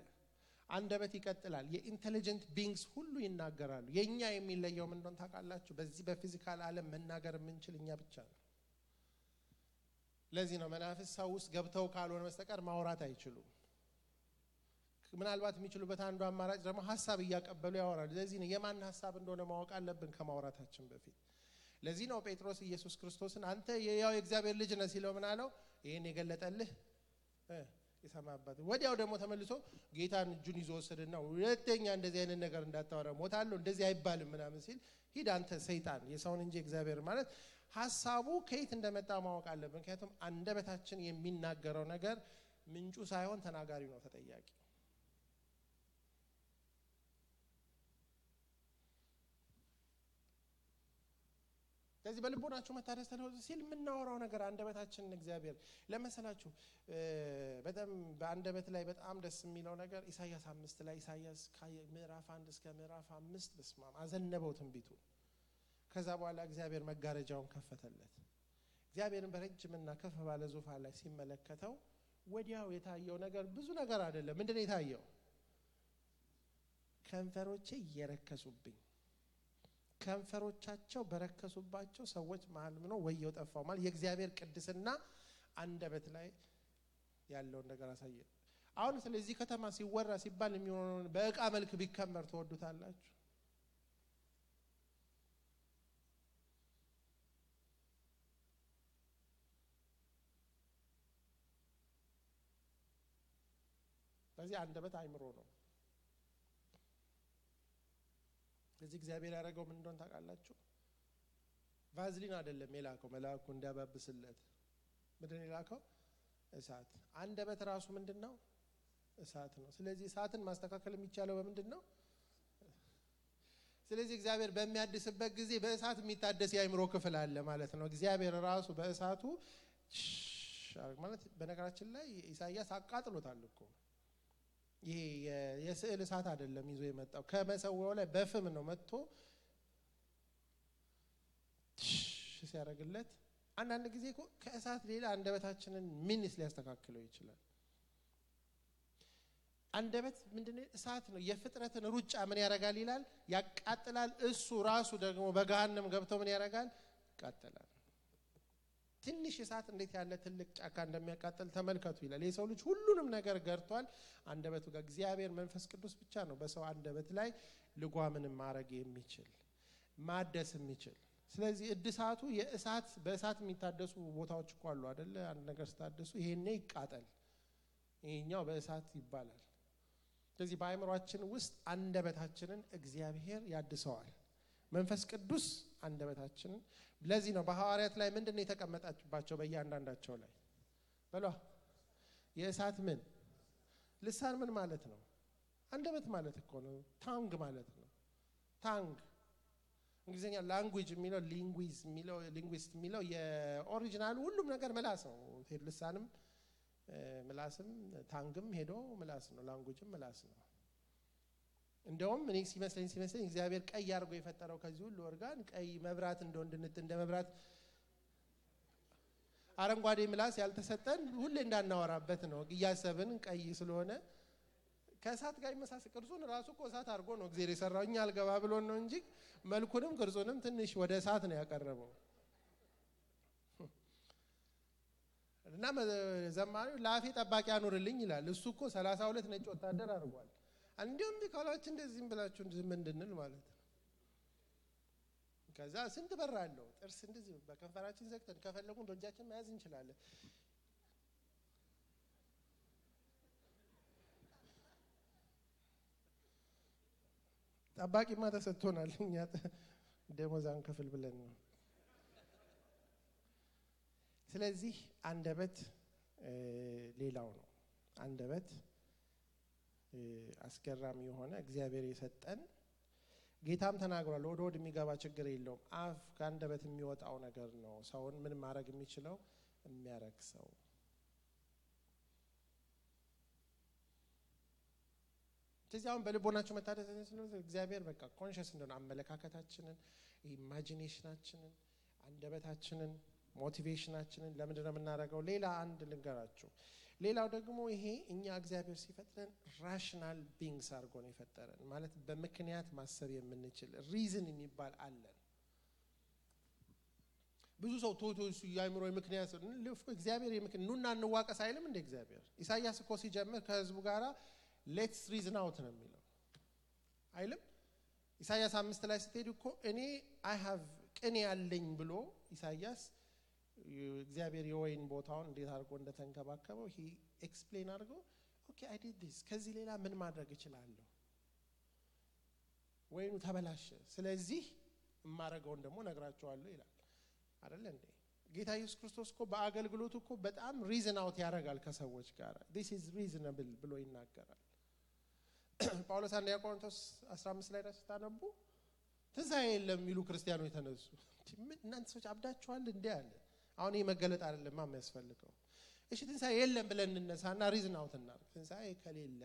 አንደበት ይቀጥላል የኢንተለጀንት ቢንግስ ሁሉ ይናገራሉ የኛ የሚለየው ምን እንደሆነ ታውቃላችሁ በዚህ በፊዚካል ዓለም መናገር የምንችል እኛ ብቻ ነው ለዚህ ነው መናፍስ ሰው ውስጥ ገብተው ካልሆነ በስተቀር ማውራት አይችሉም ምናልባት የሚችሉበት አንዱ አማራጭ ደግሞ ሐሳብ እያቀበሉ ያወራሉ ለዚህ ነው የማን ሐሳብ እንደሆነ ማወቅ አለብን ከማውራታችን በፊት ለዚህ ነው ጴጥሮስ ኢየሱስ ክርስቶስን አንተ የያው የእግዚአብሔር ልጅ ነህ ሲለው ምን አለው ይሄን የገለጠልህ ይሰማበት ወዲያው ደግሞ ተመልሶ ጌታን እጁን ይዞ ወሰደና ሁለተኛ እንደዚህ አይነት ነገር እንዳታወራ ሞታለሁ እንደዚህ አይባልም ምናምን ሲል ሂድ አንተ ሰይጣን የሰውን እንጂ እግዚአብሔር ማለት ሐሳቡ ከየት እንደመጣ ማወቅ አለብን ምክንያቱም አንደበታችን የሚናገረው ነገር ምንጩ ሳይሆን ተናጋሪው ነው ተጠያቂ ስለዚህ በልቦናችሁ መታደስ ተለወጡ ሲል የምናወራው ነገር አንደበታችንን እግዚአብሔር ለመሰላችሁ በጣም በአንደበት ላይ በጣም ደስ የሚለው ነገር ኢሳይያስ 5 ላይ ኢሳይያስ ምዕራፍ 1 እስከ ምዕራፍ 5 በስማም አዘነበው ትንቢቱ ከዛ በኋላ እግዚአብሔር መጋረጃውን ከፈተለት እግዚአብሔርን በረጅምና ከፍ ባለ ዙፋን ላይ ሲመለከተው ወዲያው የታየው ነገር ብዙ ነገር አይደለም ምንድነው የታየው ከንፈሮቼ እየረከሱብኝ ከንፈሮቻቸው በረከሱባቸው ሰዎች መሃል ነው ወየው ጠፋው ማለት የእግዚአብሔር ቅድስና አንደበት ላይ ያለው ነገር አሳየ አሁን ስለዚህ ከተማ ሲወራ ሲባል የሚሆነው በእቃ መልክ ቢከመር ተወዱታላችሁ ስለዚህ አንደበት አይምሮ ነው ስለዚህ እግዚአብሔር ያደረገው ምን እንደሆነ ታውቃላችሁ ቫዝሊን አይደለም የላከው መልአኩ እንዲያባብስለት ምንድነው የላከው እሳት አንደበት ራሱ ምንድነው እሳት ነው ስለዚህ እሳትን ማስተካከል የሚቻለው በምንድነው ስለዚህ እግዚአብሔር በሚያድስበት ጊዜ በእሳት የሚታደስ የአይምሮ ክፍል አለ ማለት ነው እግዚአብሔር ራሱ በእሳቱ ማለት በነገራችን ላይ ኢሳይያስ አቃጥሎታል እኮ ይሄ የስዕል እሳት አይደለም ይዞ የመጣው ከመሰዋው ላይ በፍም ነው መጥቶ ሲያረግለት አንዳንድ ጊዜ እኮ ከእሳት ሌላ አንደበታችንን ምንስ ሊያስተካክለው ይችላል አንደበት ምንድነው እሳት ነው የፍጥረትን ሩጫ ምን ያረጋል ይላል ያቃጥላል እሱ ራሱ ደግሞ በገሃነም ገብቶ ምን ያረጋል ያቃጥላል ትንሽ እሳት እንዴት ያለ ትልቅ ጫካ እንደሚያቃጥል ተመልከቱ ይላል የሰው ልጅ ሁሉንም ነገር ገርቷል አንደበቱ ጋር እግዚአብሔር መንፈስ ቅዱስ ብቻ ነው በሰው አንደበት ላይ ልጓምን ማረግ የሚችል ማደስ የሚችል ስለዚህ እድሳቱ የእሳት በእሳት የሚታደሱ ቦታዎች እኮ አሉ አይደለ አንድ ነገር ስታደሱ ይሄኔ ይቃጠል ይሄኛው በእሳት ይባላል ስለዚህ በአይምሮአችን ውስጥ አንደበታችንን እግዚአብሔር ያድሰዋል መንፈስ ቅዱስ አንደበታችንን ለዚህ ነው በሐዋርያት ላይ ምንድነው የተቀመጣችባቸው በእያንዳንዳቸው ላይ በሏ የእሳት ምን ልሳን ምን ማለት ነው አንደበት ማለት እኮ ነው ታንግ ማለት ነው ታንግ እንግሊዝኛ ላንጉዌጅ የሚለው ሊንጉዊስት የሚለው የኦሪጂናል ሁሉም ነገር ምላስ ነው። ልሳንም ምላስም ታንግም ሄዶ ምላስ ነው። ላንጉዌጅም ምላስ ነው። እንደውም እኔ ሲመስለኝ እግዚአብሔር ቀይ አድርጎ የፈጠረው ከዚህ ሁሉ ኦርጋን ቀይ መብራት እንደ መብራት አረንጓዴ ምላስ ያልተሰጠን ሁሌ እንዳናወራበት ነው እያሰብን ቀይ ስለሆነ ከእሳት ጋር ይመሳሰል። ቅርጹን ራሱ እኮ እሳት አድርጎ ነው እግዚአብሔር የሰራው እኛ አልገባ ብሎን ነው እንጂ መልኩንም ቅርጹንም ትንሽ ወደ እሳት ነው ያቀረበው። እና ዘማሪው ላፌ ጠባቂ አኑርልኝ ይላል። እሱ እኮ 32 ነጭ ወታደር አድርጓል። እንዲሁም ቢካላችሁ እንደዚህም ብላችሁ ዝም እንድንል ማለት ነው። ከዛ ስንት በር አለው ጥርስ እንደዚህ በከንፈራችን ዘግተን ከፈለጉን በእጃችን መያዝ እንችላለን። ጠባቂማ ተሰጥቶናል እኛ ደሞዛን ከፍል ብለን ነው። ስለዚህ አንደበት ሌላው ነው። አንደበት አስገራሚ የሆነ እግዚአብሔር የሰጠን ጌታም ተናግሯል። ወደ ሆድ የሚገባ ችግር የለውም። አፍ ከአንደበት የሚወጣው ነገር ነው ሰውን ምን ማድረግ የሚችለው የሚያረክሰው። ስለዚህ አሁን በልቦናችሁ መታደስ ስለሆነ እግዚአብሔር በቃ ኮንሺየስ እንደሆነ አመለካከታችንን፣ ኢማጂኔሽናችንን፣ አንደበታችንን፣ ሞቲቬሽናችንን ለምንድን ነው የምናደርገው? ሌላ አንድ ልንገራችሁ። ሌላው ደግሞ ይሄ እኛ እግዚአብሔር ሲፈጥረን ራሽናል ቢንግስ አድርጎ ነው የፈጠረን። ማለት በምክንያት ማሰብ የምንችል ሪዝን የሚባል አለን። ብዙ ሰው ቶቶሱ ያይምሮ ምክንያት እግዚአብሔር ኑና እንዋቀስ አይልም እንደ እግዚአብሔር። ኢሳይያስ እኮ ሲጀምር ከህዝቡ ጋራ ሌትስ ሪዝን አውት ነው የሚለው አይልም? ኢሳይያስ 5 ላይ ስትሄዱ እኮ እኔ አይ ሃቭ ቅኔ ያለኝ ብሎ ኢሳይያስ እግዚአብሔር የወይን ቦታውን እንዴት አድርጎ እንደተንከባከበው ሂ ኤክስፕሌን አድርጎ ኦኬ አይ ዲድ ዲስ ከዚህ ሌላ ምን ማድረግ እችላለሁ? ወይኑ ተበላሸ፣ ስለዚህ የማረገውን ደግሞ ነግራቸዋለሁ ይላል አይደል እንዴ? ጌታ ኢየሱስ ክርስቶስ እኮ በአገልግሎቱ እኮ በጣም ሪዝን አውት ያደርጋል ከሰዎች ጋር። this is reasonable ብሎ ይናገራል። ጳውሎስ አንደኛ ቆሮንቶስ 15 ላይ ታነቡ ትንሣኤ የለም የሚሉ ክርስቲያኖች ተነሱ። እናንተ ሰዎች አብዳችኋል እንዴ አለ። አሁን ይሄ መገለጥ አይደለም የሚያስፈልገው። እሺ ትንሣኤ የለም ብለን እንነሳና ሪዝን አውት እናድርግ። ትንሣኤ ከሌለ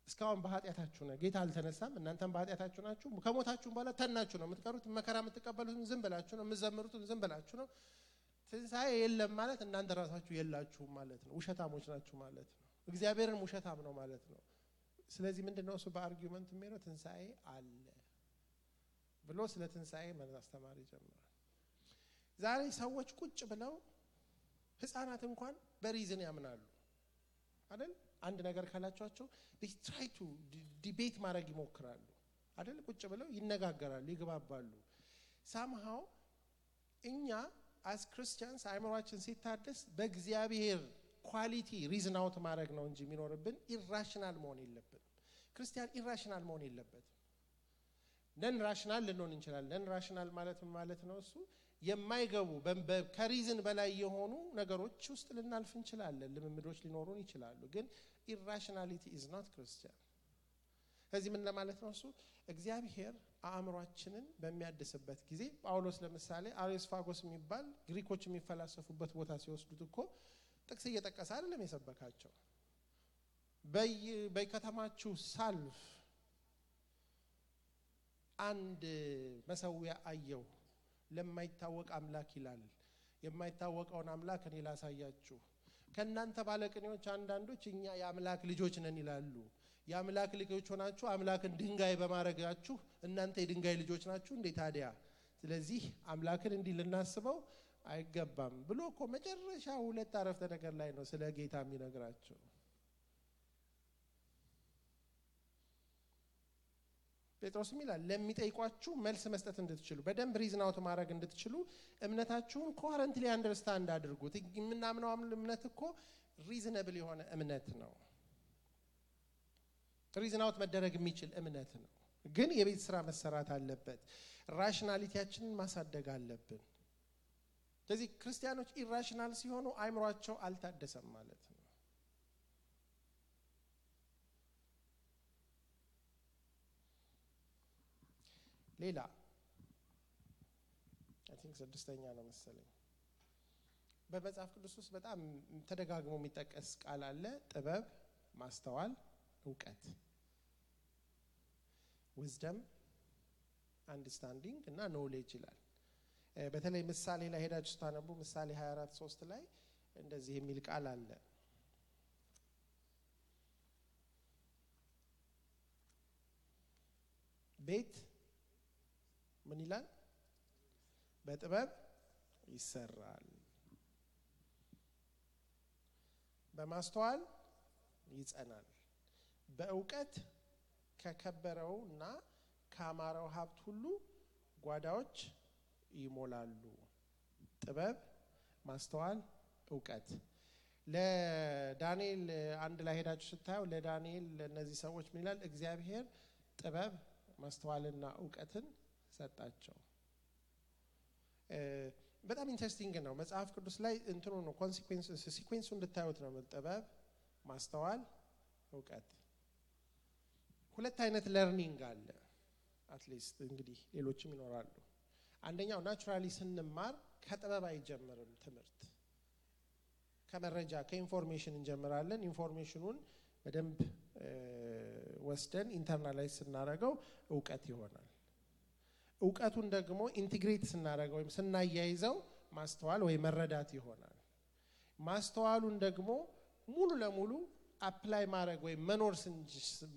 እስካሁን በኃጢአታችሁ ነው፣ ጌታ አልተነሳም፣ እናንተም በኃጢአታችሁ ናችሁ፣ ከሞታችሁ በኋላ ተናችሁ ነው የምትቀሩት፣ መከራ የምትቀበሉት ዝም ብላችሁ ነው፣ የምትዘምሩት ዝም ብላችሁ ነው። ትንሣኤ የለም ማለት እናንተ ራሳችሁ የላችሁም ማለት ነው፣ ውሸታሞች ናችሁ ማለት ነው፣ እግዚአብሔርን ውሸታም ነው ማለት ነው። ስለዚህ ምንድነው እሱ በአርጊውመንት የሚለው ትንሣኤ አለ ብሎ ስለ ትንሣኤ ማስተማር ይጀምራል። ዛሬ ሰዎች ቁጭ ብለው ህፃናት እንኳን በሪዝን ያምናሉ አይደል? አንድ ነገር ካላችኋቸው they try to debate ማድረግ ይሞክራሉ አይደል? ቁጭ ብለው ይነጋገራሉ፣ ይግባባሉ። somehow እኛ as Christians አይምሮአችን ሲታደስ በእግዚአብሔር ኳሊቲ ሪዝን አውት ማድረግ ነው እንጂ የሚኖርብን ኢራሽናል መሆን የለብንም። ክርስቲያን ኢራሽናል መሆን የለበትም። ነን ራሽናል ልንሆን እንችላለን። ነን ራሽናል ማለት ነው እሱ የማይገቡ ከሪዝን በላይ የሆኑ ነገሮች ውስጥ ልናልፍ እንችላለን። ልምምዶች ሊኖሩን ይችላሉ። ግን ኢራሽናሊቲ is not Christian። ከዚህ ምን ለማለት ነው እሱ እግዚአብሔር አእምሮአችንን በሚያድስበት ጊዜ ጳውሎስ ለምሳሌ አሪዮስፋጎስ የሚባል ግሪኮች የሚፈላሰፉበት ቦታ ሲወስዱት እኮ ጥቅስ እየጠቀሰ አይደለም የሰበካቸው። በከተማችሁ ሳልፍ አንድ መሰዊያ አየሁ ለማይታወቅ አምላክ ይላል። የማይታወቀውን አምላክ እኔ ላሳያችሁ። ከናንተ ባለቅኔዎች አንዳንዶች እኛ የአምላክ ልጆች ነን ይላሉ። የአምላክ ልጆች ሆናችሁ አምላክን ድንጋይ በማረጋችሁ እናንተ የድንጋይ ልጆች ናችሁ እንዴ ታዲያ? ስለዚህ አምላክን እንዲህ ልናስበው አይገባም ብሎ እኮ መጨረሻ ሁለት አረፍተ ነገር ላይ ነው ስለ ጌታ የሚነግራቸው። ጴጥሮስም ይላል ለሚጠይቋችሁ መልስ መስጠት እንድትችሉ በደንብ ሪዝን አውት ማድረግ እንድትችሉ እምነታችሁን ኮሄረንትሊ አንደርስታንድ አድርጉት። የምናምነው እምነት እኮ ሪዝነብል የሆነ እምነት ነው። ሪዝን አውት መደረግ የሚችል እምነት ነው። ግን የቤት ስራ መሰራት አለበት። ራሽናሊቲያችንን ማሳደግ አለብን። ስለዚህ ክርስቲያኖች ኢራሽናል ሲሆኑ አይምሮአቸው አልታደሰም ማለት ነው። ሌላ አይ ቲንክ ስድስተኛ ነው መሰለኝ። በመጽሐፍ ቅዱስ ውስጥ በጣም ተደጋግሞ የሚጠቀስ ቃል አለ። ጥበብ፣ ማስተዋል፣ ዕውቀት፣ wisdom, understanding እና knowledge ይላል። በተለይ ምሳሌ ላይ ሄዳችሁ ስታነቡ ምሳሌ 24:3 ላይ እንደዚህ የሚል ቃል አለ። ቤት ምን ይላል? በጥበብ ይሰራል፣ በማስተዋል ይጸናል፣ በዕውቀት ከከበረውና ካማረው ሀብት ሁሉ ጓዳዎች ይሞላሉ። ጥበብ፣ ማስተዋል፣ ዕውቀት። ለዳንኤል አንድ ላይ ሄዳችሁ ስታዩ ለዳንኤል ለነዚህ ሰዎች ምን ይላል? እግዚአብሔር ጥበብ፣ ማስተዋልና ዕውቀትን ሰጣቸው። በጣም ኢንተረስቲንግ ነው። መጽሐፍ ቅዱስ ላይ እንትኑ ነው ሲኩዌንሱ እንድታዩት ነው። ጥበብ፣ ማስተዋል፣ ዕውቀት። ሁለት አይነት ለርኒንግ አለ። አትሊስት እንግዲህ ሌሎችም ይኖራሉ። አንደኛው ናቹራሊ ስንማር ከጥበብ አይጀምርም ትምህርት። ከመረጃ ከኢንፎርሜሽን እንጀምራለን። ኢንፎርሜሽኑን በደንብ ወስደን ኢንተርናላይዝ ስናደርገው ዕውቀት ይሆናል። ዕውቀቱን ደግሞ ኢንቲግሬት ስናደርገው ወይም ስናያይዘው ማስተዋል ወይ መረዳት ይሆናል። ማስተዋሉን ደግሞ ሙሉ ለሙሉ አፕላይ ማድረግ ወይ መኖር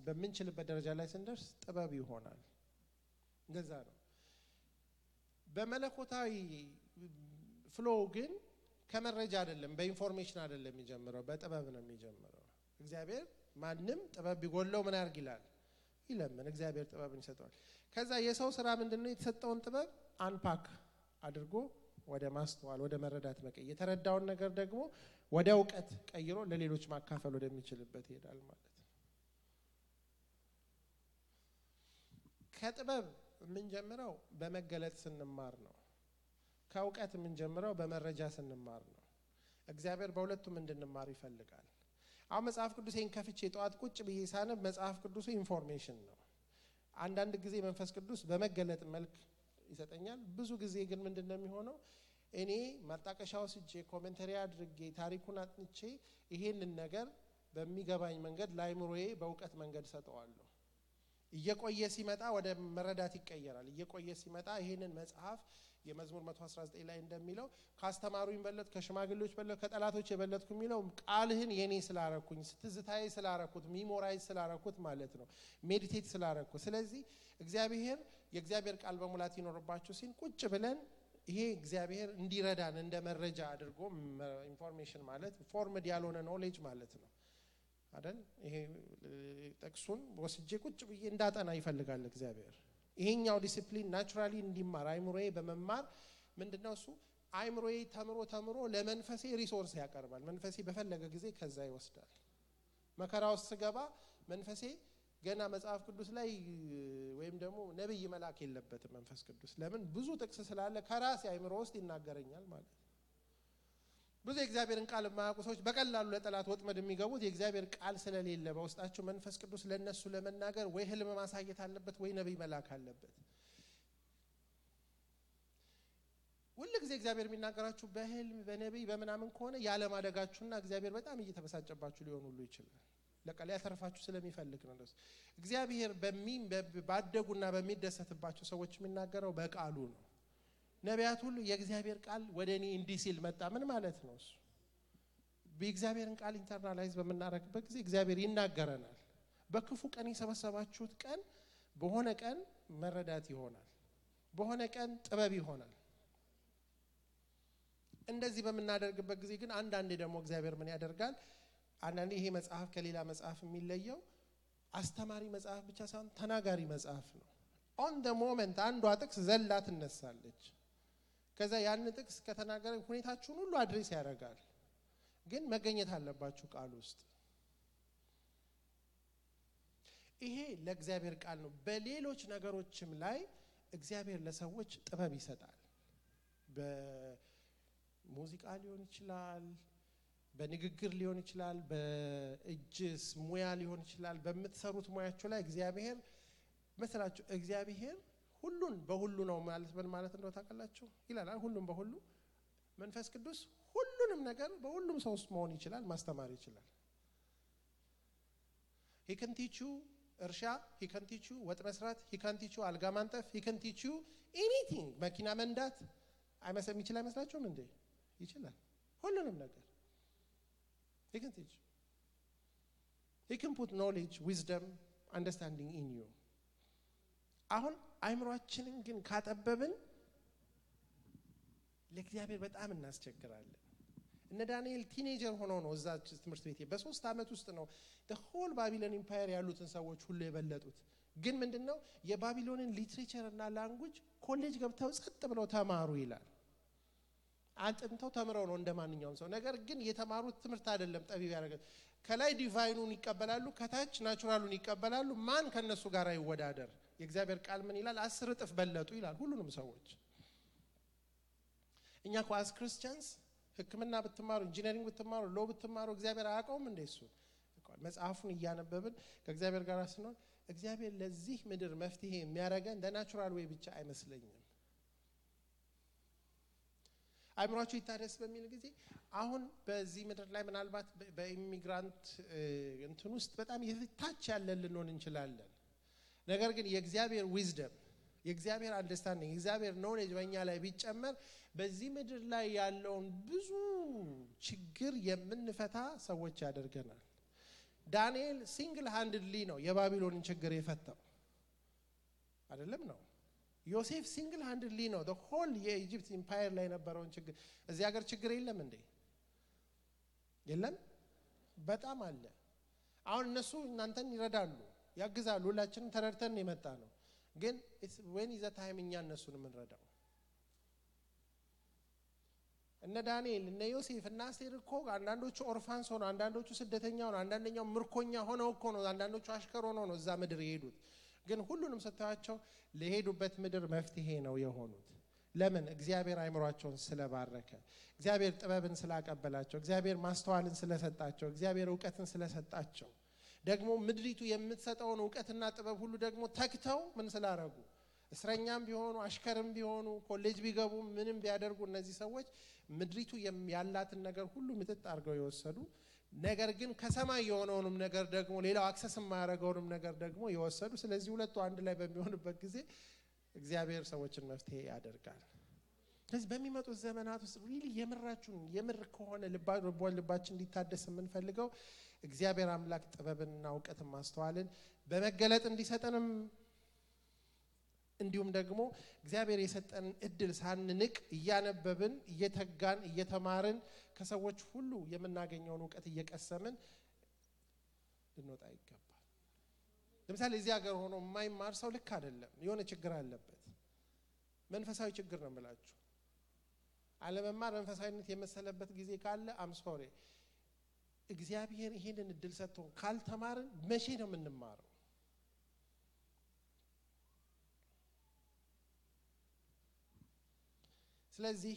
በምንችልበት ደረጃ ላይ ስንደርስ ጥበብ ይሆናል። እንደዛ ነው። በመለኮታዊ ፍሎ ግን ከመረጃ አይደለም፣ በኢንፎርሜሽን አይደለም የሚጀምረው፣ በጥበብ ነው የሚጀምረው። እግዚአብሔር ማንም ጥበብ ቢጎለው ምን ያርግ ይላል? ይለምን። እግዚአብሔር ጥበብን ይሰጠዋል። ከዛ የሰው ስራ ምንድነው? የተሰጠውን ጥበብ አንፓክ አድርጎ ወደ ማስተዋል ወደ መረዳት መቀየር፣ የተረዳውን ነገር ደግሞ ወደ ዕውቀት ቀይሮ ለሌሎች ማካፈል ወደሚችልበት ይሄዳል ማለት ነው። ከጥበብ የምንጀምረው በመገለጥ ስንማር ነው። ከዕውቀት የምንጀምረው በመረጃ ስንማር ነው። እግዚአብሔር በሁለቱም እንድንማር ይፈልጋል። አሁን መጽሐፍ ቅዱሴን ከፍቼ ጠዋት ቁጭ ብዬ ሳነብ መጽሐፍ ቅዱሱ ኢንፎርሜሽን ነው። አንዳንድ ጊዜ መንፈስ ቅዱስ በመገለጥ መልክ ይሰጠኛል። ብዙ ጊዜ ግን ምንድነው የሚሆነው? እኔ ማጣቀሻ ወስጄ ኮሜንተሪ አድርጌ ታሪኩን አጥንቼ ይሄንን ነገር በሚገባኝ መንገድ ለአይምሮዬ በዕውቀት መንገድ ሰጠዋለሁ። እየቆየ ሲመጣ ወደ መረዳት ይቀየራል። እየቆየ ሲመጣ ይሄንን መጽሐፍ የመዝሙር 119 ላይ እንደሚለው ካስተማሩኝ በለጥ፣ ከሽማግሌዎች በለጥ፣ ከጠላቶች የበለጥኩ የሚለው ቃልህን የኔ ስላረኩኝ፣ ትዝታዬ ስላረኩት፣ ሚሞራይዝ ስላረኩት ማለት ነው፣ ሜዲቴት ስላረኩት። ስለዚህ እግዚአብሔር የእግዚአብሔር ቃል በሙላት ይኖርባችሁ ሲል ቁጭ ብለን ይሄ እግዚአብሔር እንዲረዳን እንደ መረጃ አድርጎ ኢንፎርሜሽን ማለት ፎርምድ ያልሆነ ኖሌጅ ማለት ነው አይደል? ይሄ ጥቅሱን ወስጄ ቁጭ ብዬ እንዳጠና ይፈልጋል እግዚአብሔር። ይሄኛው ዲሲፕሊን ናቹራሊ እንዲማር አይምሮዬ በመማር ምንድነው እሱ አይምሮዬ ተምሮ ለመንፈሴ ሪሶርስ ያቀርባል። መንፈሴ በፈለገ ጊዜ ከዛ ይወስዳል። መከራ ውስጥ ስገባ መንፈሴ ገና መጽሐፍ ቅዱስ ላይ ወይም ደግሞ ነብይ መላክ የለበትም መንፈስ ቅዱስ። ለምን? ብዙ ጥቅስ ስላለ ከራሴ አይምሮ ውስጥ ይናገረኛል ማለት ነው። ብዙ የእግዚአብሔርን ቃል የማያውቁ ሰዎች በቀላሉ ለጠላት ወጥመድ የሚገቡት የእግዚአብሔር ቃል ስለሌለ በውስጣቸው መንፈስ ቅዱስ ለነሱ ለመናገር ወይ ህልም ማሳየት አለበት ወይ ነብይ መላክ አለበት። ሁሉ ጊዜ እግዚአብሔር የሚናገራችሁ በህልም በነብይ በመናምን ከሆነ ያለማደጋችሁና እግዚአብሔር በጣም እየተበሳጨባችሁ ሊሆን ሁሉ ይችላል። ለቃል ያተርፋችሁ ስለሚፈልግ ነው። እግዚአብሔር ባደጉና በሚደሰትባቸው ሰዎች የሚናገረው በቃሉ ነው። ነቢያት ሁሉ የእግዚአብሔር ቃል ወደኔ እንዲህ ሲል መጣ። ምን ማለት ነው እሱ? በእግዚአብሔርን ቃል ኢንተርናላይዝ በመናረክበት ጊዜ እግዚአብሔር ይናገረናል። በክፉ ቀን የሰበሰባችሁት ቀን በሆነ ቀን መረዳት ይሆናል፣ በሆነ ቀን ጥበብ ይሆናል። እንደዚህ በመናደርግበት ጊዜ ግን አንዳንዴ ደግሞ እግዚአብሔር ምን ያደርጋል? አንዳንዴ ይሄ መጽሐፍ ከሌላ መጽሐፍ የሚለየው አስተማሪ መጽሐፍ ብቻ ሳይሆን ተናጋሪ መጽሐፍ ነው። ኦን ዘ ሞመንት አንዷ ጥቅስ ዘላ ትነሳለች። ከዛ ያን ጥቅስ ከተናገረ ሁኔታችሁን ሁሉ አድሬስ ያደርጋል። ግን መገኘት አለባችሁ ቃል ውስጥ። ይሄ ለእግዚአብሔር ቃል ነው። በሌሎች ነገሮችም ላይ እግዚአብሔር ለሰዎች ጥበብ ይሰጣል። በሙዚቃ ሊሆን ይችላል፣ በንግግር ሊሆን ይችላል፣ በእጅስ ሙያ ሊሆን ይችላል። በምትሰሩት ሙያችሁ ላይ እግዚአብሔር መስላችሁ እግዚአብሔር ሁሉን በሁሉ ነው ማለት ምን ማለት እንደው ታውቃላችሁ ይላል ሁሉን በሁሉ መንፈስ ቅዱስ ሁሉንም ነገር በሁሉም ሰው ውስጥ መሆን ይችላል ማስተማር ይችላል he can teach you እርሻ he can teach you ወጥ መስራት he can teach you አልጋ ማንጠፍ he can teach you anything መኪና መንዳት አይመስልም ይችላል አይመስላችሁም እንዴ ይችላል ሁሉንም ነገር he can teach he can put knowledge wisdom understanding in you አሁን አይምሮአችንን ግን ካጠበብን ለእግዚአብሔር በጣም እናስቸግራለን እነ ዳንኤል ቲኔጀር ሆኖ ነው እዛ ትምህርት ቤት በ3 አመት ውስጥ ነው the whole Babylon empire ያሉትን ሰዎች ሁሉ የበለጡት ግን ምንድነው የባቢሎንን ሊትሬቸር እና ላንጉዌጅ ኮሌጅ ገብተው ጸጥ ብለው ተማሩ ይላል አንተንተው ተምረው ነው እንደማንኛውም ሰው ነገር ግን የተማሩት ትምህርት አይደለም ጠቢብ ያደረገ ከላይ ዲቫይኑን ይቀበላሉ ከታች ናቹራሉን ይቀበላሉ ማን ከነሱ ጋር ይወዳደር የእግዚአብሔር ቃል ምን ይላል 10 እጥፍ በለጡ ይላል ሁሉንም ሰዎች እኛ ኳስ ክርስቲያንስ ህክምና በትማሩ ኢንጂነሪንግ በትማሩ ሎ በትማሩ እግዚአብሔር አያውቀውም እንደሱ መጽሐፉን እያነበብን ከእግዚአብሔር ጋር ስንሆን እግዚአብሔር ለዚህ ምድር መፍትሄ የሚያረጋን በናቹራል ዌይ ብቻ አይመስለኝም አይምሮአችሁ ይታደስ በሚል ጊዜ አሁን በዚህ ምድር ላይ ምናልባት በኢሚግራንት እንትን ውስጥ በጣም የታች ያለን ልንሆን እንችላለን ነገር ግን የእግዚአብሔር ዊዝደም የእግዚአብሔር አንደርስታንዲንግ የእግዚአብሔር ኖሌጅ በእኛ ላይ ቢጨመር በዚህ ምድር ላይ ያለውን ብዙ ችግር የምንፈታ ሰዎች ያደርገናል ዳንኤል ሲንግል ሃንድሊ ነው የባቢሎንን ችግር የፈታው አይደለም ነው ዮሴፍ ሲንግል ሃንድሊ ነው the whole የኢጂፕት ኢምፓየር ላይ ነበረውን ችግር እዚህ ሀገር ችግር የለም እንዴ የለም በጣም አለ አሁን እነሱ እናንተን ይረዳሉ ያግዛሉ ሁላችንም ተረድተን የመጣ ነው ግን when is the time እኛ እነሱን እንረዳው እነ ዳንኤል እነ ዮሴፍ እና አስቴር እኮ አንዳንዶቹ ኦርፋንስ ሆነው አንዳንዶቹ ስደተኛ ሆነው አንዳንደኛው ምርኮኛ ሆነው እኮ ነው አንዳንዶቹ አሽከር ሆነው ነው እዛ ምድር የሄዱት ግን ሁሉንም ሰጣቸው ለሄዱበት ምድር መፍትሄ ነው የሆኑት ለምን እግዚአብሔር አይምሮአቸውን ስለባረከ እግዚአብሔር ጥበብን ስላቀበላቸው እግዚአብሔር ማስተዋልን ስለሰጣቸው እግዚአብሔር ዕውቀትን ስለሰጣቸው ደግሞ ምድሪቱ የምትሰጠውን ዕውቀትና ጥበብ ሁሉ ደግሞ ተክተው ምን ስላረጉ እስረኛም ቢሆኑ አሽከርም ቢሆኑ ኮሌጅ ቢገቡ ምንም ቢያደርጉ እነዚህ ሰዎች ምድሪቱ ያላትን ነገር ሁሉ ምጥጥ አርገው ይወሰዱ ነገር ግን ከሰማይ የሆነውንም ነገር ደግሞ ሌላው አክሰስ ማያረጋውንም ነገር ደግሞ ይወሰዱ ስለዚህ ሁለቱ አንድ ላይ በሚሆንበት ጊዜ እግዚአብሔር ሰዎችን መፍትሄ ያደርጋል ስለዚህ በሚመጡት ዘመናት ውስጥ ሪሊ የምራችሁን የምር ከሆነ ልባችን እንዲታደስ የምንፈልገው እግዚአብሔር አምላክ ጥበብንና ዕውቀትን ማስተዋልን በመገለጥ እንዲሰጠንም እንዲሁም ደግሞ እግዚአብሔር የሰጠን እድል ሳንንቅ እያነበብን እየተጋን እየተማርን ከሰዎች ሁሉ የምናገኘውን ዕውቀት እየቀሰምን ልንወጣ ይገባል ለምሳሌ እዚህ ሀገር ሆኖ የማይማር ሰው ልክ አይደለም የሆነ ችግር አለበት መንፈሳዊ ችግር ነው የምላችሁ አለመማር መንፈሳዊነት የመሰለበት ጊዜ ካለ አም ሶሪ እግዚአብሔር ይሄንን እድል ሰጥቶን ካልተማርን መቼ ነው የምንማረው ስለዚህ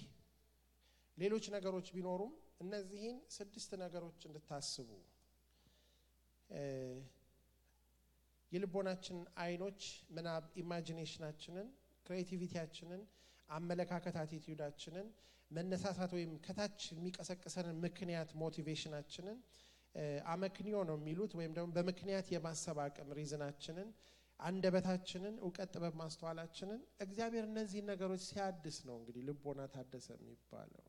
ሌሎች ነገሮች ቢኖሩም እነዚህን 6 ነገሮች እንድታስቡ የልቦናችን አይኖች ምናብ ኢማጂኔሽናችንን ክሬቲቪቲያችንን አመለካከት አቲቲዩዳችንን መነሳሳት ወይም ከታች የሚቀሰቅሰንን ምክንያት ሞቲቬሽናችንን አመክንዮ ነው የሚሉት ወይም ደግሞ በምክንያት የማሰብ አቅም ሪዝናችንን አንደበታችንን ዕውቀት ጥበብ ማስተዋላችንን እግዚአብሔር እነዚህ ነገሮች ሲያድስ ነው እንግዲህ ልቦና ታደሰ የሚባለው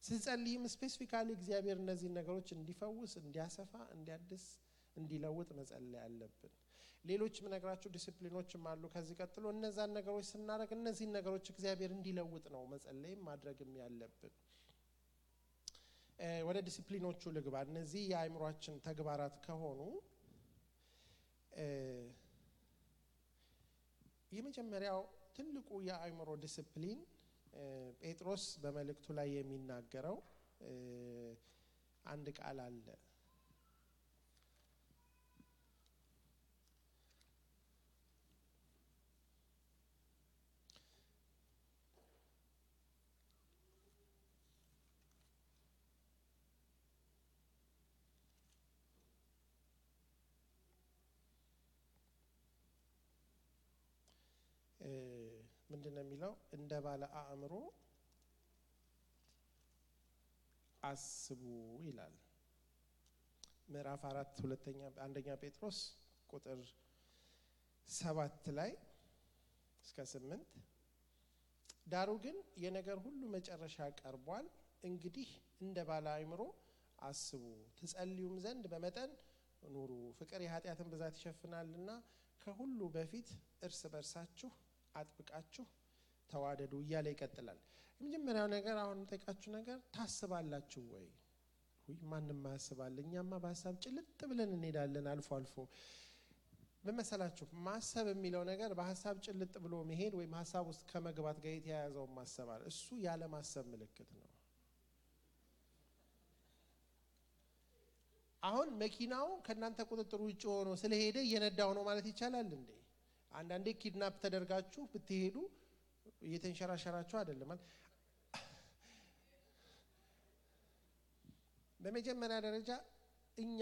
ስንጸልይም ስፔሲፊካሊ እግዚአብሔር እነዚህ ነገሮች እንዲፈውስ እንዲያሰፋ እንዲያድስ እንዲለውጥ መጸለይ አለብን ሌሎች ምነግራችሁ ዲሲፕሊኖችም አሉ ከዚህ ቀጥሎ እነዛን ነገሮች ስናደርግ እነዚህ ነገሮች እግዚአብሔር እንዲለውጥ ነው መጸለይም ማድረግም ያለብን ወደ ዲሲፕሊኖቹ ልግባ እነዚህ የአይምሮአችን ተግባራት ከሆኑ የመጀመሪያው ትልቁ የአይምሮ ዲሲፕሊን ጴጥሮስ በመልእክቱ ላይ የሚናገረው አንድ ቃል አለ ምንድነው የሚለው እንደ ባለ አእምሮ አስቡ ይላል። ምዕራፍ 4 አንደኛ ጴጥሮስ ቁጥር 7 ላይ እስከ 8 ዳሩ ግን የነገር ሁሉ መጨረሻ ቀርቧል። እንግዲህ እንደ ባለ አእምሮ አስቡ፣ ትጸልዩም ዘንድ በመጠን ኑሩ። ፍቅር የኃጢአትን ብዛት ይሸፍናልና ከሁሉ በፊት እርስ በርሳችሁ አጥብቃችሁ ተዋደዱ እያለ ይቀጥላል። የመጀመሪያው ነገር አሁን የምጠይቃችሁ ነገር ታስባላችሁ ወይ? ማንንም ያስባል። እኛማ በሐሳብ ጭልጥ ብለን እንሄዳለን አልፎ አልፎ። በመሰላችሁ ማሰብ የሚለው ነገር በሐሳብ ጭልጥ ብሎ መሄድ ወይም ሐሳብ ውስጥ ከመግባት ጋር የተያያዘው ማሰባል እሱ ያለ ማሰብ ምልክት ነው። አሁን መኪናው ከናንተ ቁጥጥር ውጭ ሆኖ ስለሄደ እየነዳው ነው ማለት ይቻላል እንዴ? አንዳንዴ ኪድናፕ ተደርጋችሁ ብትሄዱ እየተንሸራሸራችሁ አይደለም ማለት። በመጀመሪያ ደረጃ እኛ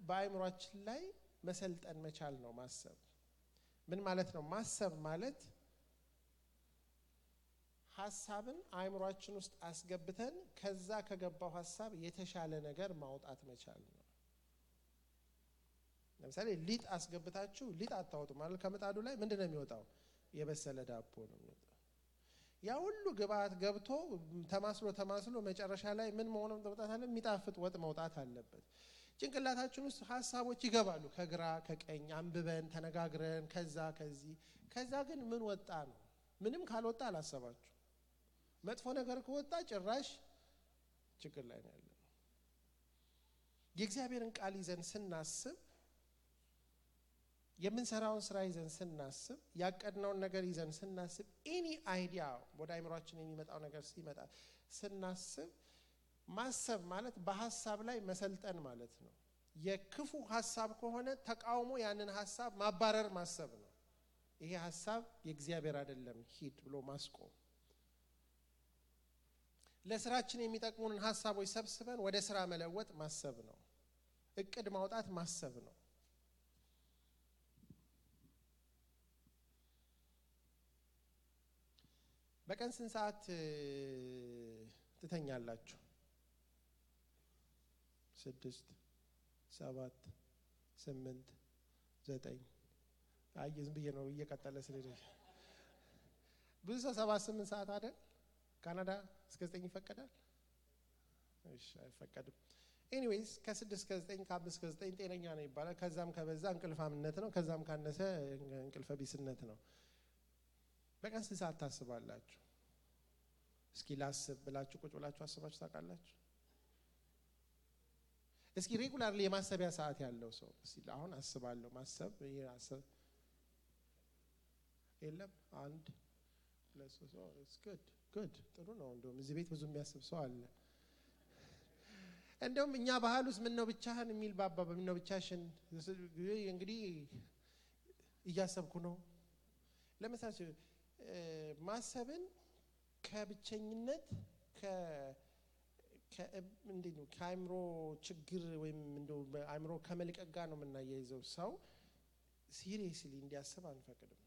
በአእምሮአችን ላይ መሰልጠን መቻል ነው ማሰብ። ምን ማለት ነው ማሰብ ማለት? ሐሳብን አእምሮአችን ውስጥ አስገብተን ከዛ ከገባው ሐሳብ የተሻለ ነገር ማውጣት መቻል ነው። ለምሳሌ ሊጥ አስገብታችሁ ሊጥ አታወጡ ማለት ከምጣዱ ላይ ምንድነው የሚወጣው? የበሰለ ዳቦ ነው የሚወጣው። ያ ሁሉ ግብአት ገብቶ ተማስሎ መጨረሻ ላይ ምን መሆኑን መውጣት አለ? የሚጣፍጥ ወጥ መውጣት አለበት። ጭንቅላታችን ውስጥ ሐሳቦች ይገባሉ፣ ከግራ ከቀኝ አንብበን ተነጋግረን ከዛ ግን ምን ወጣ ነው? ምንም ካልወጣ አላሰባችሁ። መጥፎ ነገር ከወጣ ጭራሽ ችግር ላይ ነው ያለው። የእግዚአብሔርን ቃል ይዘን ስናስብ፣ የምንሰራውን ስራ ይዘን ስናስብ፣ ያቀድነውን ነገር ይዘን ስናስብ፣ ኤኒ አይዲያ ወደ አእምሮአችን የሚመጣው ነገር ሲመጣ ስናስብ፣ ማሰብ ማለት በሐሳብ ላይ መሰልጠን ማለት ነው። የክፉ ሐሳብ ከሆነ ተቃውሞ ያንን ሐሳብ ማባረር ማሰብ ነው። ይሄ ሐሳብ የእግዚአብሔር አይደለም ሂድ ብሎ ማስቆም። ለስራችን የሚጠቅሙንን ሐሳቦች ሰብስበን ወደ ስራ መለወጥ ማሰብ ነው። እቅድ ማውጣት ማሰብ ነው። በቀን ስንት ሰዓት ትተኛላችሁ? 6 7 8 9 ዝም ብዬ ነው እየቀጠለ ስለዚህ ብዙ ሰው 7 8 ሰዓት አይደል? ካናዳ እስከ 9 ይፈቀዳል? እሺ አይፈቀድም። ኤኒዌይስ ከ6 እስከ 9 ከ5 እስከ 9 ጤነኛ ነው ይባላል። ከዛም ከበዛ እንቅልፋምነት ነው፣ ከዛም ካነሰ እንቅልፈ ቢስነት ነው። በቀን ስንት ሰዓት ታስባላችሁ? እስኪ ላስብ ብላችሁ ቁጭ ብላችሁ አስባችሁ ታውቃላችሁ? እስኪ ሬጉላርሊ የማሰቢያ ሰዓት ያለው ሰው እስኪ አሁን አስባለሁ ማሰብ ያሰብ የለም? 1 2 3 ጉድ ጥሩ ነው። እንደውም እዚህ ቤት ብዙ የሚያስብ ሰው አለ። እንደውም እኛ ባህል ውስጥ ምን ነው ብቻህን የሚል ባባ ምን ነው ብቻሽን እንግዲህ እያሰብኩ ነው። ለምሳሌ ማሰብን ከብቸኝነት እንዴት ነው ከአእምሮ ችግር ወይም እንደው አእምሮ ከመልቀቅ ጋር ነው የምናያይዘው። ሰው ሲሪየስሊ እንዲያስብ አንፈቅድም።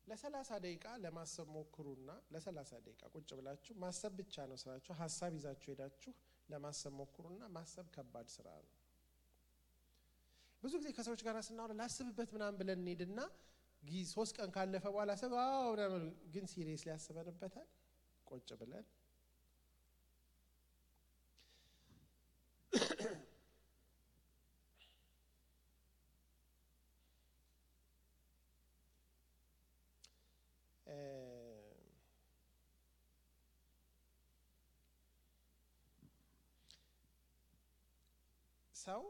ለ30 ደቂቃ ለማሰብ ሞክሩና ለ30 ደቂቃ ቁጭ ብላችሁ ማሰብ ብቻ ነው ስራችሁ። ሐሳብ ይዛችሁ ሄዳችሁ ለማሰብ ሞክሩና ማሰብ ከባድ ስራ ነው። ብዙ ጊዜ ከሰዎች ጋር ስናወራ ላስብበት ምናምን ብለን እንሄድና 3 ቀን ካለፈ በኋላ ሰባው ግን ሲሪየስሊ ያስበንበታል ቁጭ ብለን። ሰው